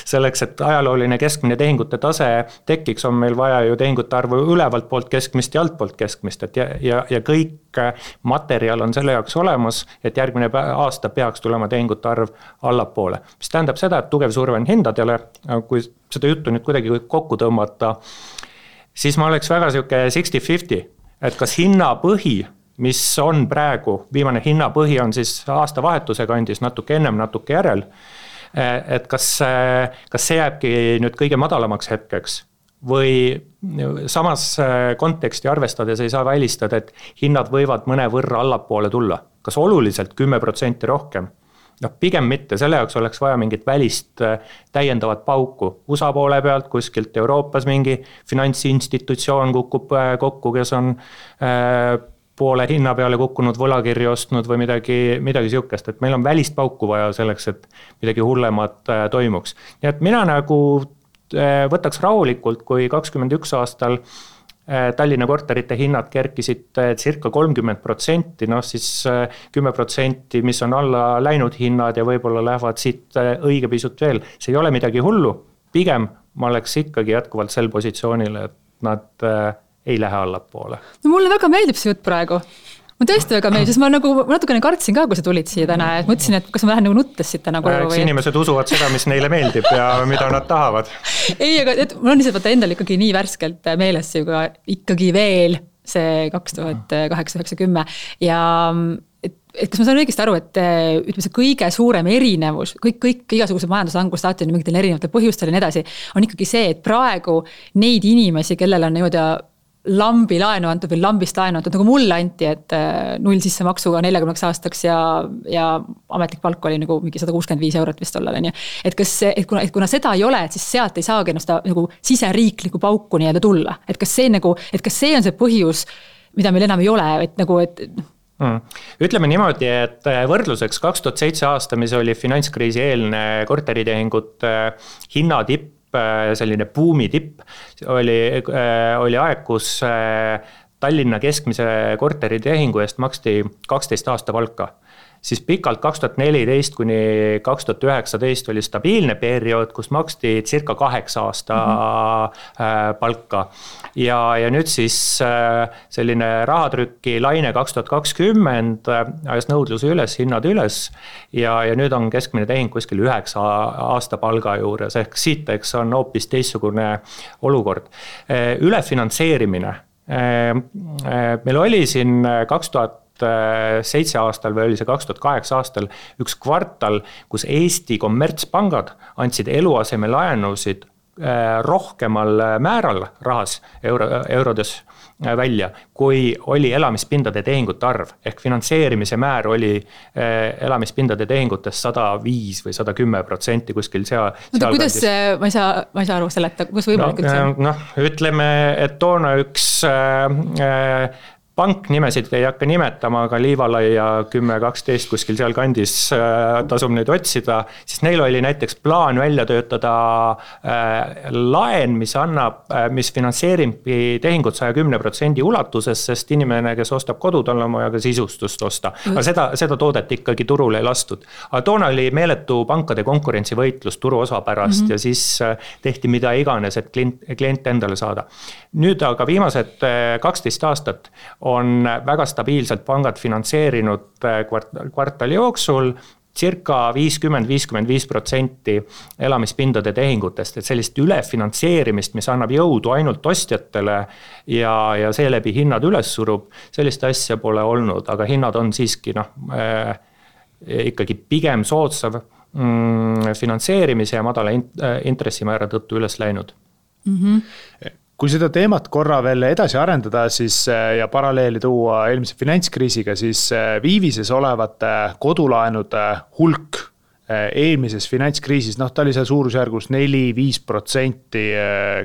selleks, et ajalooline keskmine tehingute tase tekiks, on meil vaja ju tehingute arvu ülevalt poolt keskmist ja alt poolt keskmist, et ja kõik materjal on selle jaoks olemas, et järgmine aasta peaks tulema tehingute arv allapoole. Mis tähendab seda, et tugev surve on hindadele, kui seda juttu nüüd kuidagi kokku tõmmata, siis ma oleks väga siuke 60-50, et kas hinnapõhi, mis on praegu, viimane hinnapõhi on siis aastavahetuse kandis natuke ennem, natuke järel, et kas see jääbki nüüd kõige madalamaks hetkeks või samas konteksti arvestades ei saa välistada, et hinnad võivad mõne võrra allapoole tulla. Kas oluliselt 10% rohkem? Pigem mitte, selle jaoks oleks vaja mingit välist täiendavat pauku. USA poole pealt kuskilt Euroopas mingi finantsinstitutsioon kukub kokku, kes on poole hinna peale kukkunud võlakirju ostnud või midagi siukest, et meil on välist pauku vaja selleks, et midagi hullemat toimuks. Nii et mina nagu võtaks rahulikult, kui 21 aastal Tallinna korterite hinnad kerkisid circa 30%, siis 10%, mis on alla läinud hinnad ja võib-olla lähevad siit õige pisut veel. See ei ole midagi hullu, pigem ma oleks ikkagi jätkuvalt sel positsioonil, et nad ei lähe allapoole. No mulle väga meeldib see jutt praegu. Ma tõesti väga meeldib, sest ma nagu natukene kartsin ka, kui sa tulid siia täna, et mõtlesin, et kas ma lähen nagu nuttes siit täna koju või... Inimesed usuvad seda, mis neile meeldib ja mida nad tahavad. Ei, aga mul on lihtsalt endal ikkagi nii värskelt meeles ikkagi veel see 2008-2010 ja et kas ma saan õigesti aru, et ütleme see kõige suurem erinevus, kõik igasugused majanduslangust saati on mingitel erinevatel põhjustel ja nii edasi, on ikkagi see, et praegu neid inimesi, kellel on niimoodi lambi laenu antud või lambist laenu antud, nagu mulle anti, et 0 sissemaksuga 40 aastaks ja ametlik palk oli nagu mingi 165 eurot vist tollal, on ju. Et kuna seda ei ole, et siis sealt ei saagi seda nagu siseriikliku pauku nii-öelda tulla. Et kas see on see põhjus, mida meil enam ei ole, et nagu, et... Ütleme niimoodi, et võrdluseks 2007 aasta, mis oli finantskriisi eelne korteritehingute hinnatipp selline buumi tipp, oli aeg, kus Tallinna keskmise korteritehingu eest maksti 12 aasta palka. Siis pikalt 2014 kuni 2019 oli stabiilne periood, kus maksti circa 8 aasta palka. Ja nüüd siis selline rahatrükki laine 2020 ajas nõudluse üles, hinnad üles ja nüüd on keskmine tehing kuskil 9 aasta palga juures, ehk siit eks on hoopis teistsugune olukord. Ülefinantseerimine. Meil oli siin 2007 aastal või oli see 2008 aastal üks kvartal, kus Eesti kommertspangad andsid eluasemelaenusid rohkemal määral rahas eurodes välja, kui oli elamispindade tehingute arv. Ehk finantseerimise määr oli elamispindade tehingutest 105 või 110% kuskil seal. Kuidas ma ei saa aru seleta, kus võimalik üldse? Ütleme, et toona üks pank nimesid ei hakka nimetama, aga Liivalai ja 10-12 kuskil seal kandis tasub neid otsida, siis neil oli näiteks plaan välja töötada laen, mis finantseeribki tehingut 110% ulatuses, sest inimene, kes ostab kodu, tal on vaja ka sisustust osta. Aga seda toodet ikkagi turule ei lastud. Aga toona oli meeletu pankade konkurentsivõitlus turu osa pärast ja siis tehti mida iganes, et klient endale saada. Nüüd aga viimased 12 aastat on väga stabiilselt pangad finantseerinud kvartali jooksul circa 50-55% elamispindade tehingutest, et sellist ülefinantseerimist, mis annab jõudu ainult ostjatele ja seeläbi hinnad üles surub, sellist asja pole olnud, aga hinnad on siiski ikkagi pigem soodsav finantseerimise ja madala intressimäära tõttu üles läinud. Kui seda teemat korra veel edasi arendada siis, ja paralleeli tuua eelmise finantskriisiga, siis viivises olevate kodulaenude hulk eelmises finantskriisis, ta oli seal suurusjärgus 4-5%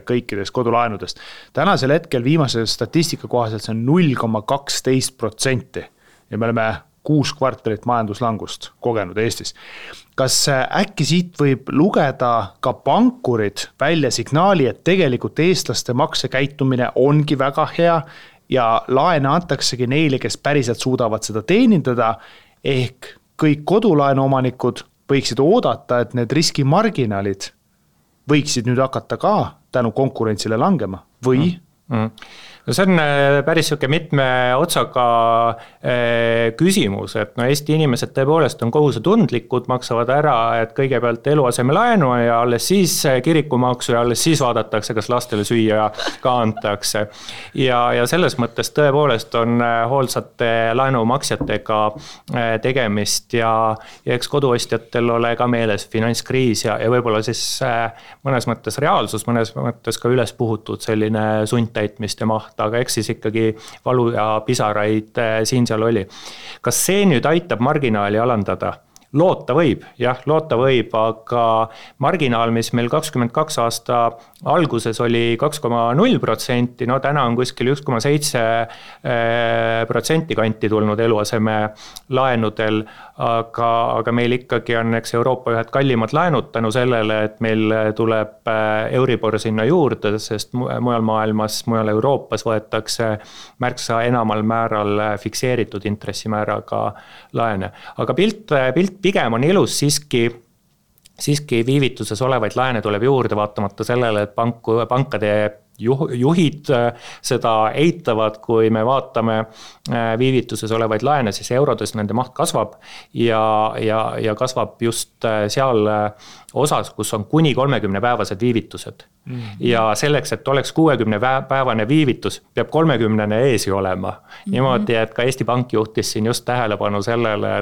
kõikidest kodulaenudest. Tänasel hetkel viimase statistika kohaselt see on 0,12% ja me oleme 6 kvartalit majanduslangust kogenud Eestis. Kas äkki siit võib lugeda ka pankurid välja signaali, et tegelikult eestlaste maksekäitumine ongi väga hea ja laene antaksegi neile, kes päriselt suudavad seda teenindada, ehk kõik kodulaenuomanikud võiksid oodata, et need riskimarginaalid võiksid nüüd hakata ka tänu konkurentsile langema või? No see on päris mitme otsaga küsimus, et Eesti inimesed tõepoolest on kohusetundlikud, maksavad ära, et kõigepealt eluasemelaenu ja alles siis kirikumaksu ja alles siis vaadatakse, kas lastele süüa ka antakse. Ja selles mõttes tõepoolest on hoolsate laenumaksjatega tegemist ja eks koduostjatel ole ka meeles finantskriis ja võib-olla siis mõnes mõttes reaalsus, mõnes mõttes ka üles puhutud selline sundtäitmist ja maht, aga eks siis ikkagi valu ja pisaraid siin-seal oli. Kas see nüüd aitab marginaali alandada? Loota võib, aga marginaal, mis meil 22 aasta alguses oli 2,0%, täna on kuskil 1,7% kanti tulnud eluaseme laenudel, aga meil ikkagi on Euroopa ühed kallimad laenud tänu sellele, et meil tuleb Euribor sinna juurde, sest mujal maailmas, mujal Euroopas võetakse märksa enamal määral fikseeritud intressimääraga laene. Aga pilt pigem on ilus siiski viivituses olevaid laene tuleb juurde vaatamata sellele, et pankade juhid seda eitavad, kui me vaatame viivituses olevaid laene, siis eurodes nende maht kasvab ja kasvab just seal osas, kus on kuni 30-päevased viivitused. Ja selleks, et oleks 60-päevane viivitus, peab 30-ne eesi olema. Niimoodi, et ka Eesti Pank juhtis siin just tähelepanu sellele,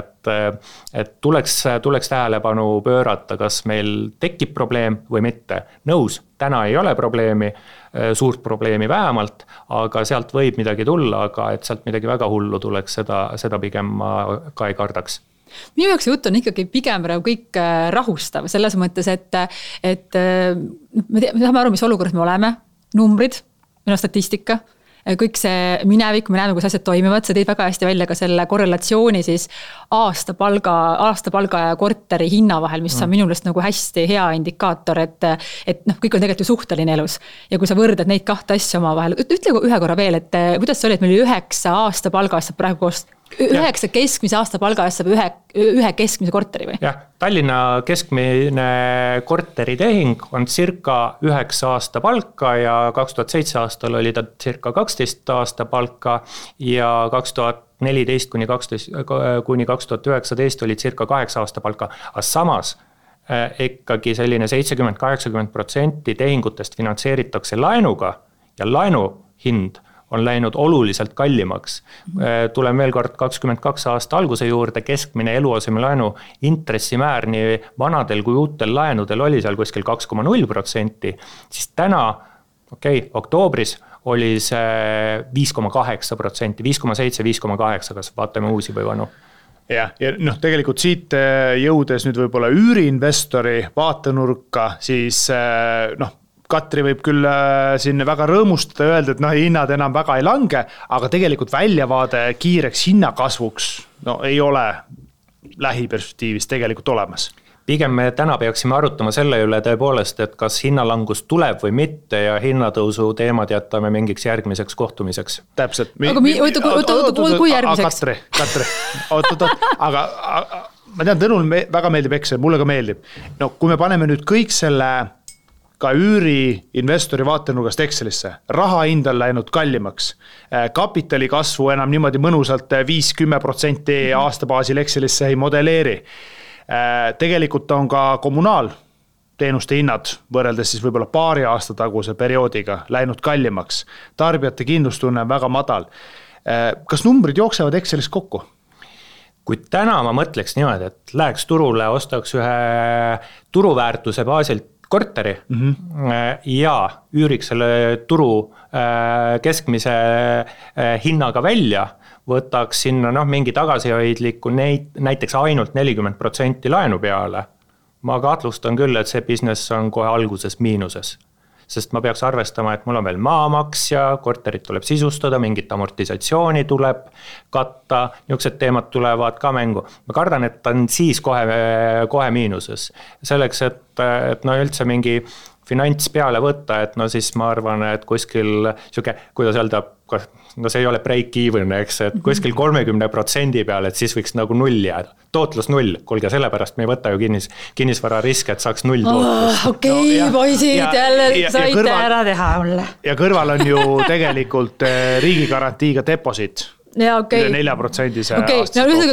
et tuleks tähelepanu pöörata, kas meil tekib probleem või mitte. Nõus, täna ei ole probleemi, suurt probleemi vähemalt, aga sealt võib midagi tulla, aga et sealt midagi väga hullu tuleks, seda pigem ma ka ei kardaks. Minu jaoks jutt on ikkagi pigem kõik rahustav, selles mõttes, et me saame aru, mis olukorras me oleme, numbrid, statistika, kõik see minevik, me näeme, kus asjad toimivad, sa tõid väga hästi välja ka selle korrelatsiooni siis aastapalga ja korteri hinna vahel, mis on minu meelest nagu hästi hea indikaator, et noh, kõik on tegelikult ju suhteline elus. Ja kui sa võrdad neid kahte asja omavahel, ütle ühe korra veel, et kuidas see oli, et meil 9 aastapalga saab praegu koos 9 keskmise aastapalga eest saab ühe keskmise korteri või? Jah, Tallinna keskmine korteritehing on circa 9 aasta palka ja 2007 aastal oli ta circa 12 aasta palka ja 2014 kuni 2019 oli circa 8 aasta palka, aga samas ikkagi selline 70-80% tehingutest finantseeritakse laenuga ja laenu hind on läinud oluliselt kallimaks. Tulen veel kord 22 aasta alguse juurde, keskmine eluasemelaenu intressimäär nii vanadel kui uutel laenudel oli seal kuskil 2,0%, siis täna, oktoobris oli see 5,8%, 5,7, 5,8, kas vaatame uusi või vanu. Ja noh, tegelikult siit jõudes nüüd võib-olla üüriinvestori vaatenurka, siis noh, Katri võib küll siin väga rõõmustada ja öelda, et noh, hinnad enam väga ei lange, aga tegelikult väljavaade kiireks hinnakasvuks ei ole lähiperspektiivis tegelikult olemas. Pigem me täna peaksime arutama selle üle tõepoolest, et kas hinnalangus tuleb või mitte ja hinnatõusu teemad jätame mingiks järgmiseks kohtumiseks. Täpselt. Aga kui järgmiseks? Katri, aga ma tean, Tõnul väga meeldib Excel, mulle ka meeldib. No kui me paneme nüüd kõik selle ka üüri investori vaatenurgast Excelisse. Raha hind on läinud kallimaks. Kapitali kasvu enam niimoodi mõnusalt 5-10% aastabaasil Excelisse ei modelleeri. Tegelikult on ka kommunaalteenuste hinnad võrreldes siis võib-olla paari aasta taguse perioodiga läinud kallimaks. Tarbijate kindlustunne on väga madal. Kas numbrid jooksevad Excelis kokku? Kui täna ma mõtleks niimoodi, et läheks turule, ostaks ühe turuväärtuse baasilt korteri ja üüriks selle turu keskmise hinnaga välja, võtaks sinna mingi tagasihoidliku näiteks ainult 40% laenu peale. Ma kahtlustan küll, et see business on kohe alguses miinuses. Sest ma peaks arvestama, et mul on veel maamaks ja korterit tuleb sisustada, mingit amortisatsiooni tuleb katta, niisugused teemad tulevad ka mängu. Ma kardan, et ta on siis kohe miinuses. Selleks, et üldse mingi finants peale võtta, et siis ma arvan, et kuskil kuidas öelda, see ei ole break-even, eks, et kuskil 30% peale, et siis võiks nagu null jääda. Tootlus null, kuulge, sellepärast me ei võta ju kinnisvara riske, et saaks null tootlust. Poisid, jälle saite ära teha mulle. Ja kõrval on ju tegelikult riigigarantiiga deposit. Ja, okay. 4%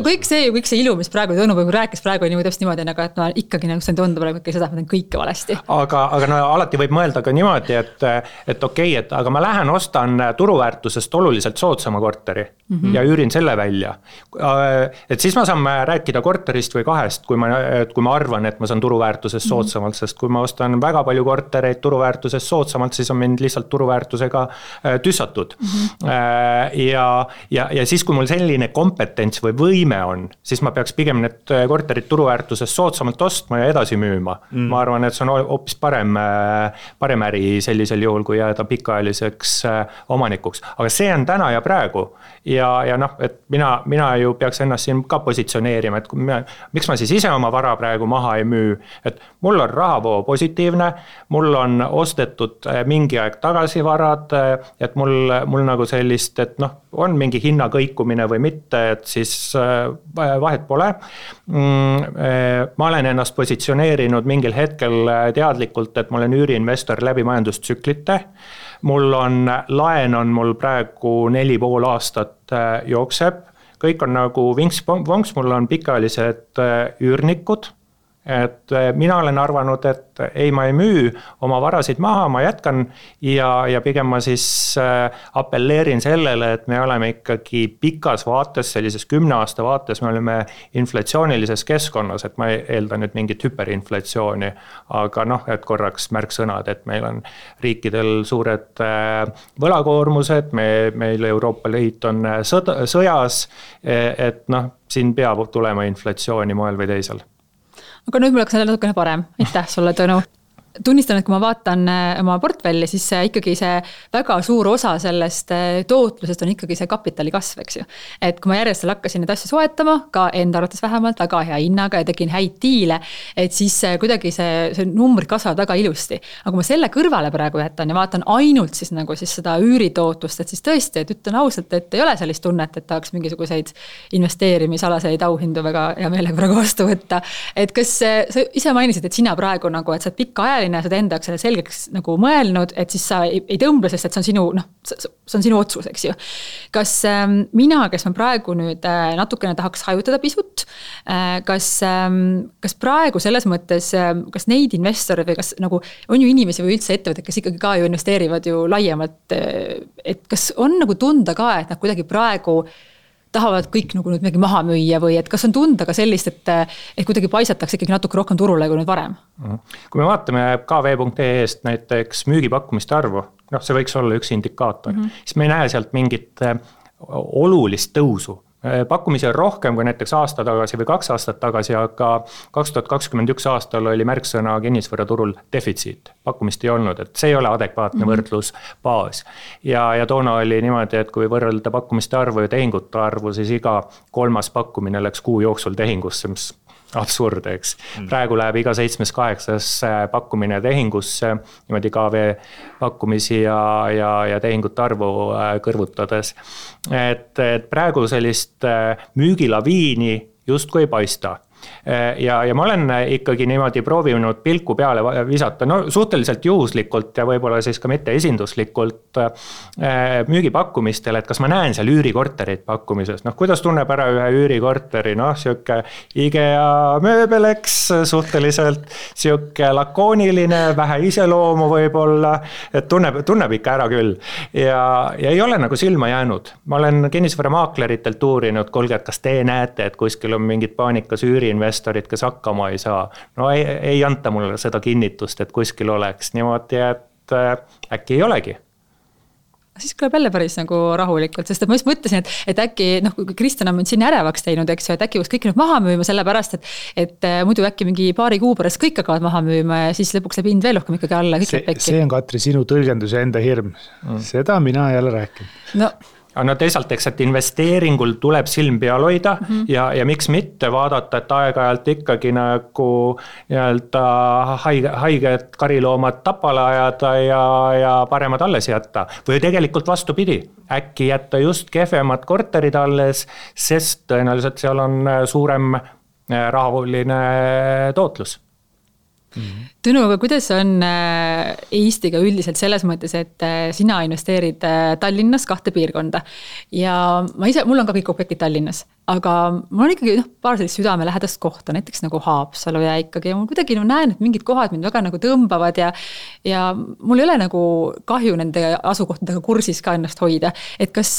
kõik see ilu, mis praegu Tõnu rääkis praegu nii täpselt niimoodi, et ikkagi nagu see tundub seda, et ma teen kõike valesti. Aga alati võib mõelda ka niimoodi, et aga ma lähen ostan turuväärtusest oluliselt soodsama korteri ja üürin selle välja. Et siis ma saan rääkida korterist või kahest, kui ma arvan, et ma saan turuväärtusest soodsamalt, sest kui ma ostan väga palju kortereid turuväärtusest soodsamalt, siis on mind lihtsalt turuväärtusega tüssatud. Ja siis, kui mul selline kompetents või võime on, siis ma peaks pigem need korterid turuväärtusest soodsamalt ostma ja edasi müüma. Ma arvan, et see on hoopis parem äri sellisel juhul, kui jääda pikaajaliseks omanikuks. Aga see on täna ja praegu. Ja et mina ju peaks ennast siin ka positsioneerima, et miks ma siis ise oma vara praegu maha ei müü, et mul on rahavoo positiivne, mul on ostetud mingi aeg tagasi varad, et mul nagu sellist, et on mingi hinna kõikumine või mitte, et siis vahet pole. Ma olen ennast positsioneerinud mingil hetkel teadlikult, et ma olen üüriinvestor läbi majandustsüklite. Laen on mul praegu 4,5 aastat jookseb. Kõik on nagu vinks-vonks, mul on pikaajalised üürnikud. Et mina olen arvanud, et ei, ma ei müü oma varasid maha, ma jätkan ja pigem ma siis appelleerin sellele, et me oleme ikkagi pikas vaates, sellises 10 aasta vaates, me oleme inflatsioonilises keskkonnas, et ma eeldan nüüd mingit hüperinflatsiooni, aga et korraks märksõnad, et meil on riikidel suured võlakoormused, meil Euroopa Liit on sõjas, et siin peab tulema inflatsiooni moel või teisel. Aga nüüd mul oleks natukene parem. Aitäh sulle, Tõnu. tunnistan, et kui ma vaatan oma portfelli, siis ikkagi see väga suur osa sellest tootlusest on ikkagi see kapitali kasv, eks ju. Et kui ma järjest hakkasin neid asju soetama, ka enda arvates vähemalt väga hea hinnaga ja tegin häid diile, et siis kuidagi see numbrid kasvavad väga ilusti. Aga kui ma selle kõrvale praegu jätan ja vaatan ainult siis nagu siis seda üüritootlust, et siis tõesti, et ütlen ausalt, et ei ole sellist tunnet, et tahaks mingisuguseid investeerimisalaseid auhindu väga hea meelega praegu vastu võtta. Et kas sa ise mainisid, et sina praegu nagu, et sa pikka ajaline, sa enda jaoks selle selgeks nagu mõelnud, et siis sa ei tõmble, sest et see on sinu, see on sinu otsus, eks ju. Kas mina, kes ma praegu nüüd natukene tahaks hajutada pisut, kas praegu selles mõttes, kas neid investoreid või kas nagu on ju inimesi või üldse ettevõtted, kes ikkagi ka ju investeerivad ju laiemalt, et kas on nagu tunda ka, et nad kuidagi praegu tahavad kõik nagu nüüd midagi maha müüa või et kas on tunda ka sellist, et kuidagi paisatakse ikkagi natuke rohkem turule kui nüüd varem? Kui me vaatame KV.ee-st näiteks müügipakkumiste arvu, see võiks olla üks indikaator, siis me ei näe sealt mingit olulist tõusu. Pakkumisi on rohkem kui näiteks aasta tagasi või 2 aastat tagasi, aga 2021 aastal oli märksõna kinnisvaraturul defitsiit. Pakkumist ei olnud, et see ei ole adekvaatne võrdlusbaas. Ja toona oli niimoodi, et kui võrrelda pakkumiste arvu ja tehingute arvu, siis iga 3. pakkumine läks kuu jooksul tehingusse, mis absurd, eks. Praegu läheb iga 7-8 pakkumine tehingusse, niimoodi KV pakkumisi ja tehingute arvu kõrvutades. Et praegu sellist müügilaviini justkui ei paista. Ja ma olen ikkagi niimoodi proovinud pilku peale visata, suhteliselt juhuslikult ja võib-olla siis ka mitte esinduslikult müügipakkumistel, et kas ma näen seal üürikorterid pakkumises. Kuidas tunneb ära ühe üürikorteri, siuke IKEA mööbeleks, suhteliselt siuke lakooniline, vähe iseloomu võib-olla, et tunneb ikka ära küll. Ja ei ole nagu silma jäänud. Ma olen kinnisvaramaakleritelt uurinud, kuulge, et kas te näete, et kuskil on mingid paanikas üüriinvestorid, kes hakkama ei saa. Ei anta mulle seda kinnitust, et kuskil oleks niimoodi, et äkki ei olegi. Siis kõleb jälle päris nagu rahulikult, sest ma just mõtlesin, et äkki, kui Kristjan on siin ärevaks teinud, eks ju, et äkki võiks kõik nüüd maha müüma sellepärast, et muidu äkki mingi paari kuu pärast kõik hakkavad maha müüma ja siis lõpuks läheb hind veel rohkem ikkagi alla. See on, Katri, sinu tõlgendus ja enda hirm. Seda mina ei ole rääkinud. Aga teisalt, eks, et investeeringul tuleb silm peal hoida ja miks mitte vaadata, et aeg-ajalt ikkagi nagu haiged kariloomad tapale ajada ja paremad alles jätta. Või tegelikult vastupidi, äkki jätta just kehvemad korterid alles, sest tõenäoliselt seal on suurem rahaline tootlus. Tõnu, aga kuidas on Eestiga üldiselt selles mõttes, et sina investeerid Tallinnas 2 piirkonda ja mul on ka kõik objektid Tallinnas, aga mul on ikkagi paar sellist südame lähedast kohta, näiteks nagu Haapsalu ja ikkagi ja mul kuidagi näen, et mingid kohad mind väga nagu tõmbavad ja mul ei ole nagu kahju nende asukohtadega kursis ka ennast hoida. Et kas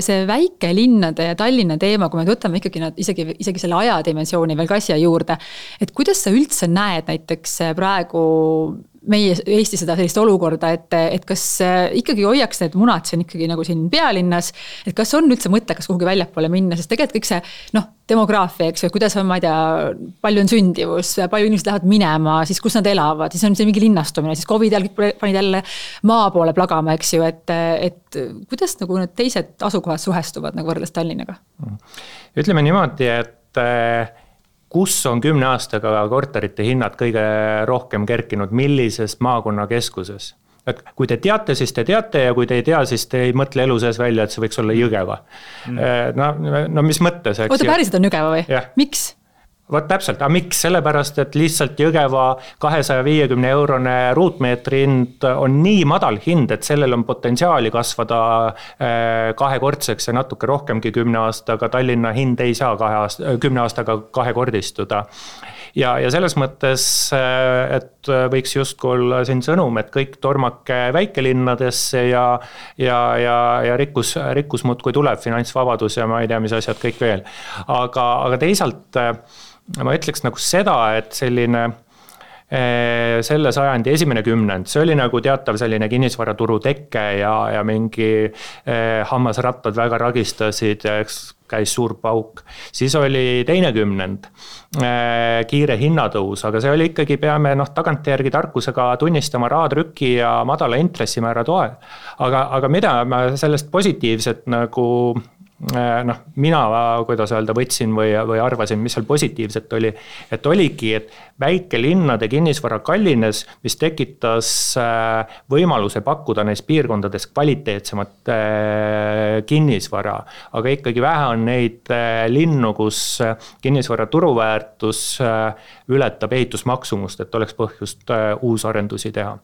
see väikelinnade ja Tallinna teema, kui me võtame ikkagi nad isegi selle ajadimensiooni veel ka asja juurde, et kuidas sa üldse näed näiteks praegu meie Eesti seda sellist olukorda, et kas ikkagi hoiaks need munad siin ikkagi nagu siin pealinnas, et kas on üldse mõttekas kuhugi väljapoole minna, sest tegelikult kõik see demograafia, eks ju, kuidas on, ma ei tea, palju on sündivus, palju inimesed lähevad minema, siis kus nad elavad, siis on see mingi linnastumine, siis COVID kõik panid jälle maa poole plagama, eks ju, et kuidas nagu need teised asukohad suhestuvad nagu võrreldes Tallinnaga? Ütleme niimoodi, et kus on 10 aastaga korterite hinnad kõige rohkem kerkinud, millises maakonna keskuses. Et kui te teate, siis te teate ja kui te ei tea, siis te ei mõtle elu sees välja, et see võiks olla Jõgeva. Mis mõttes? Oota, päriselt on Jõgeva või? Ja. Miks? Vot täpselt, aga miks? Sellepärast, et lihtsalt Jõgeva 250 eurone ruutmeetri hind on nii madal hind, et sellel on potentsiaali kasvada 2-kordseks ja natuke rohkemgi 10 aastaga. Tallinna hind ei saa 10 aastaga 2-kordistuda. Ja selles mõttes, et võiks justkui olla siin sõnum, et kõik tormake väikelinnadesse ja rikkus muudkui tuleb, finantsvabadus ja ma ei tea, mis asjad kõik veel. Aga teisalt ma ütleks nagu seda, et selline selle sajandi esimene kümnend, see oli nagu teatav selline kinnisvaraturu tekke ja mingi hammasrattad väga ragistasid ja käis suur pauk, siis oli teine kümnend, kiire hinnatõus, aga see oli ikkagi, peame tagantjärgi tarkusega tunnistama rahatrüki ja madala intressimäära toel. Aga mida ma sellest positiivset nagu mina, kuidas öelda, võtsin või arvasin, mis seal positiivset oli, et oligi, et väikelinnade kinnisvara kallines, mis tekitas võimaluse pakkuda neis piirkondades kvaliteetsemat kinnisvara, aga ikkagi vähe on neid linnu, kus kinnisvara turuväärtus ületab ehitusmaksumust, et oleks põhjust uusarendusi teha.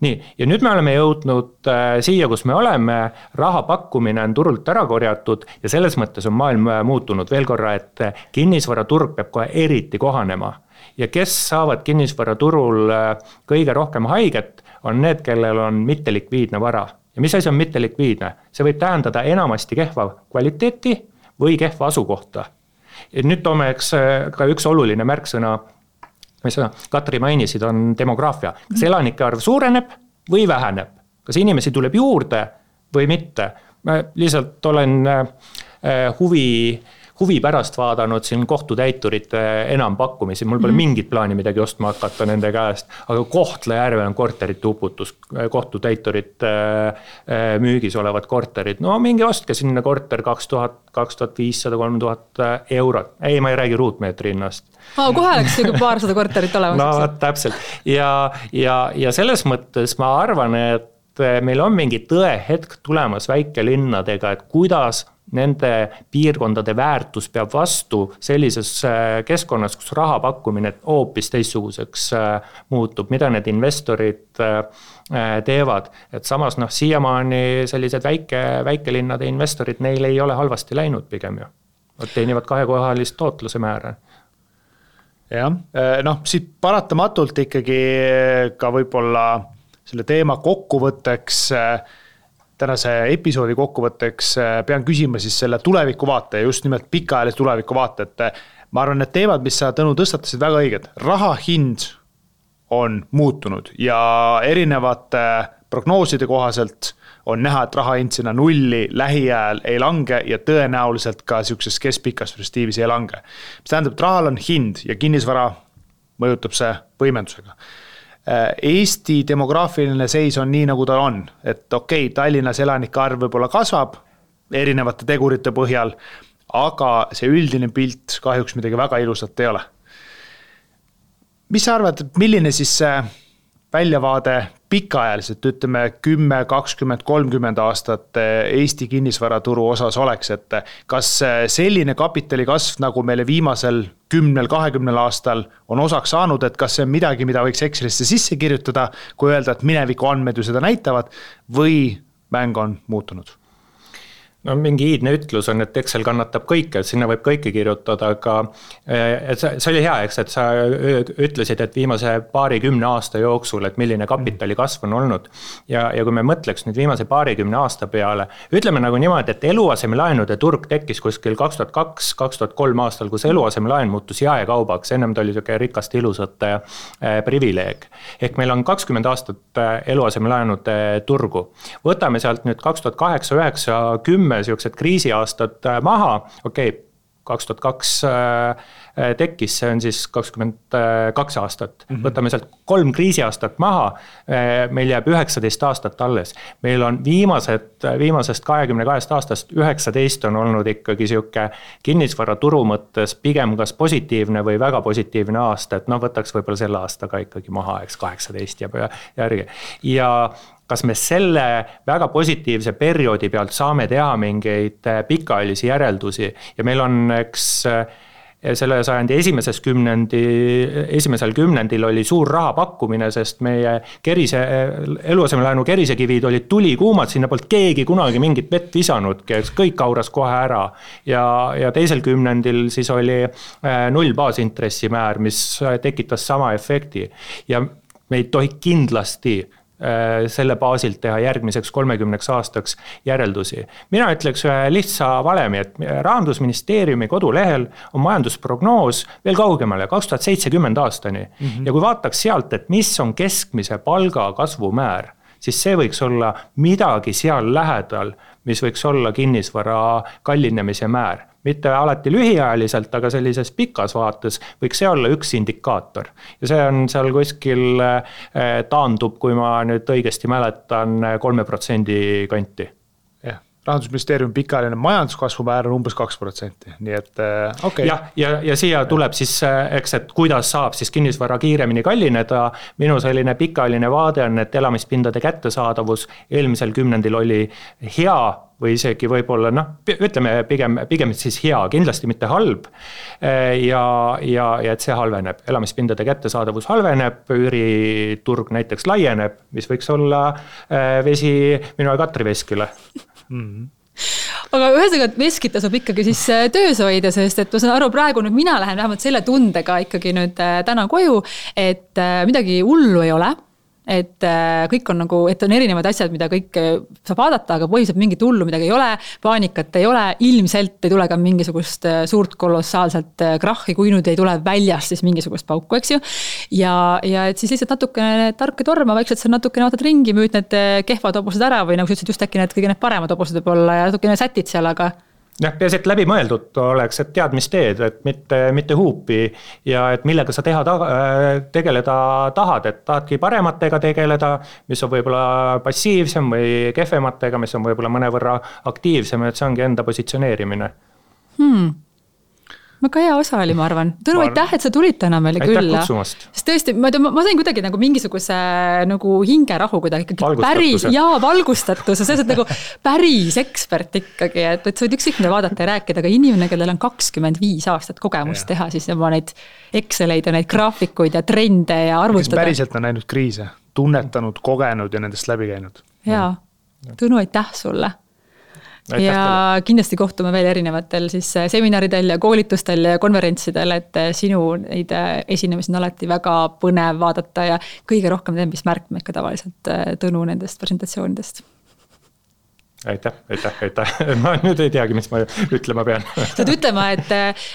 Nii, ja nüüd me oleme jõudnud siia, kus me oleme, raha pakkumine on turult ära korjatud ja selles mõttes on maailm muutunud veel korra, et kinnisvaraturg peab kohe eriti kohanema. Ja kes saavad kinnisvaraturul kõige rohkem haiget, on need, kellel on mittelikviidne vara. Ja mis asi on mittelikviidne? See võib tähendada enamasti kehva kvaliteeti või kehva asukohta. Ja nüüd toome ka üks oluline märksõna, mis Katri mainisid, on demograafia. Kas elanike arv suureneb või väheneb? Kas inimesi tuleb juurde või mitte? Ma lihtsalt olen huvi pärast vaadanud siin kohtutäiturite enampakkumisi, mul pole mingit plaani midagi ostma hakata nende käest, aga Kohtla-Järve on korterite uputus, kohtutäiturid müügis olevad korterid, no mingi ostke sinna korter 2000, 2500, 3000 eurot, ei, ma ei räägi ruutmeetri hinnast. Kohe oleks paarsada korterit olemas. No täpselt ja selles mõttes ma arvan, et meil on mingi tõehetk tulemas väikelinnadega, et kuidas nende piirkondade väärtus peab vastu sellises keskkonnas, kus raha pakkumine hoopis teistsuguseks muutub, mida need investorid teevad. Et samas siiamaani sellised väikelinnade investorid, neil ei ole halvasti läinud pigem ju. Nad teenivad kahekohalist tootluse määra. Jah, siit paratamatult ikkagi ka võib-olla selle teema kokkuvõtteks, tänase episoodi kokkuvõtteks pean küsima siis selle tulevikuvaate, just nimelt pikaajalise tulevikuvaate, et ma arvan, need teemad, mis sa, Tõnu, tõstatasid väga õiged. Raha hind on muutunud ja erinevate prognooside kohaselt on näha, et raha hind sinna nulli lähiajal ei lange ja tõenäoliselt ka sellises keskpikas perspektiivis ei lange. Mis tähendab, et rahal on hind ja kinnisvara mõjutab see võimendusega. Eesti demograafiline seis on nii, nagu ta on, et okei, Tallinnas elanike arv võib-olla kasvab erinevate tegurite põhjal, aga see üldine pilt kahjuks midagi väga ilusat ei ole. Mis sa arvad, milline siis see väljavaade pikaajaliselt, ütleme 10, 20, 30 aastat Eesti kinnisvaraturu osas oleks, et kas selline kapitali kasv, nagu meile viimasel 10-20 aastal on osaks saanud, et kas see on midagi, mida võiks Excelisse sisse kirjutada, kui öelda, et mineviku andmed ju seda näitavad, või mäng on muutunud? No mingi iidne ütlus on, et Excel kannatab kõike, et sinna võib kõike kirjutada, aga see oli hea, eks, et sa ütlesid, et viimase 20 aasta jooksul, et milline kapitali kasv on olnud. Ja kui me mõtleks nüüd viimase 20 aasta peale, ütleme nagu niimoodi, et eluasemelaenude turg tekkis kuskil 2002-2003 aastal, kus eluasemelaen muutus jaekaubaks, ennem ta oli rikast ilusate privileeg. Ehk meil on 20 aastat eluasemelaenude turgu. Võtame sealt nüüd 2008, 9, 10 siuksed kriisiaastad maha, 2002 tekkis, see on siis 22 aastat. Võtame sealt 3 kriisiaastat maha, meil jääb 19 aastat alles. Meil on viimasest 22 aastast 19 on olnud ikkagi siuke kinnisvara turu mõttes pigem kas positiivne või väga positiivne aasta, et võtaks võib-olla selle aastaga ikkagi maha, eks 18 ja järgi. Ja kas me selle väga positiivse perioodi pealt saame teha mingeid pikaajalisi järeldusi ja meil on, eks selle sajandi esimesel kümnendil oli suur raha pakkumine, sest meie eluasemelaenu kerisekivid olid tulikuumad, sinna polnud keegi kunagi mingit vett visanudki, kõik auras kohe ära ja teisel kümnendil siis oli 0 baasintressimäär, mis tekitas sama efekti ja me ei tohi kindlasti selle baasilt teha järgmiseks 30 aastaks järeldusi. Mina ütleks ühe lihtsa valemi, et Rahandusministeeriumi kodulehel on majandusprognoos veel kaugemale 2070 aastani. Ja kui vaataks sealt, et mis on keskmise palga kasvumäär, siis see võiks olla midagi seal lähedal, mis võiks olla kinnisvara kallinemise määr. mitte alati lühiajaliselt, aga sellises pikas vaates võiks see olla üks indikaator. Ja see on seal kuskil taandub, kui ma nüüd õigesti mäletan, 3% kanti. Rahandusministeeriumi pikaajaline majanduskasvu määr on umbes 2%, nii et okei. Ja siia tuleb siis, eks, et kuidas saab siis kinnisvara kiiremini kallineda. Minu selline pikaajaline vaade on, et elamispindade kättesaadavus eelmisel kümnendil oli hea või isegi võib-olla, ütleme pigem siis hea, kindlasti mitte halb. Ja et see halveneb, elamispindade kättesaadavus halveneb, üüriturg näiteks laieneb, mis võiks olla vesi minu ja Katri veskile. Aga ühesõnaga, et veskit tasub ikkagi siis töös hoida, sest et ma saan aru, praegu nüüd mina lähen vähemalt selle tundega ikkagi nüüd täna koju, et midagi hullu ei ole. Et kõik on nagu, et on erinevad asjad, mida kõik saab vaadata, aga põhiliselt mingit hullu midagi ei ole, paanikat ei ole, ilmselt ei tule ka mingisugust suurt kolossaalselt krahhi, kui nüüd ei tule väljast siis mingisugust pauku, eks ju. Ja et siis lihtsalt natukene tark ja torma, vaikselt sa natukene vaatad ringi, müüd need kehvad hobused ära või nagu sa ütlesid just äkki need kõige need paremad hobused võib olla ja natukene sätid seal, aga peaasi, et läbi mõeldud oleks, et tead, mis teed, et mitte huupi ja et millega sa tegeleda tahad, et tahadki parematega tegeleda, mis on võib-olla passiivsem või kehvematega, mis on võib-olla mõnevõrra aktiivsem, et see ongi enda positsioneerimine. Väga hea osa oli, ma arvan. Tõnu, aitäh, et sa tulid täna meile külla. Aitäh kutsumast. Sest tõesti, ma sain kuidagi nagu mingisuguse nagu hingerahu kuidagi. Valgustatus. Ja see on nagu päris ekspert ikkagi, et sa võid ükskõik mida vaadata ja rääkida, aga inimene, kellel on 25 aastat kogemust teha, siis oma neid Exceleid ja neid graafikuid ja trende ja arvutada. Kes päriselt on näinud kriise, tunnetanud, kogenud ja nendest läbi käinud. Jaa, Tõnu, aitäh sulle. Ja kindlasti kohtume veel erinevatel siis seminaridel ja koolitustel ja konverentsidel, et sinu neid esinemisi on alati väga põnev vaadata ja kõige rohkem mis märkmeid ka tavaliselt Tõnu nendest presentatsioonidest. Aitäh. Ma nüüd ei teagi, mis ma ütlema pean. Saad ütlema, et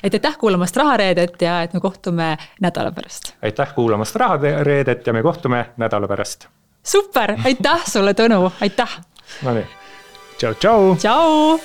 aitäh kuulamast Rahareedet ja et me kohtume nädala pärast. Aitäh kuulamast Rahareedet ja me kohtume nädala pärast. Super, aitäh sulle, Tõnu, aitäh. No nii. Ciao, ciao. Ciao.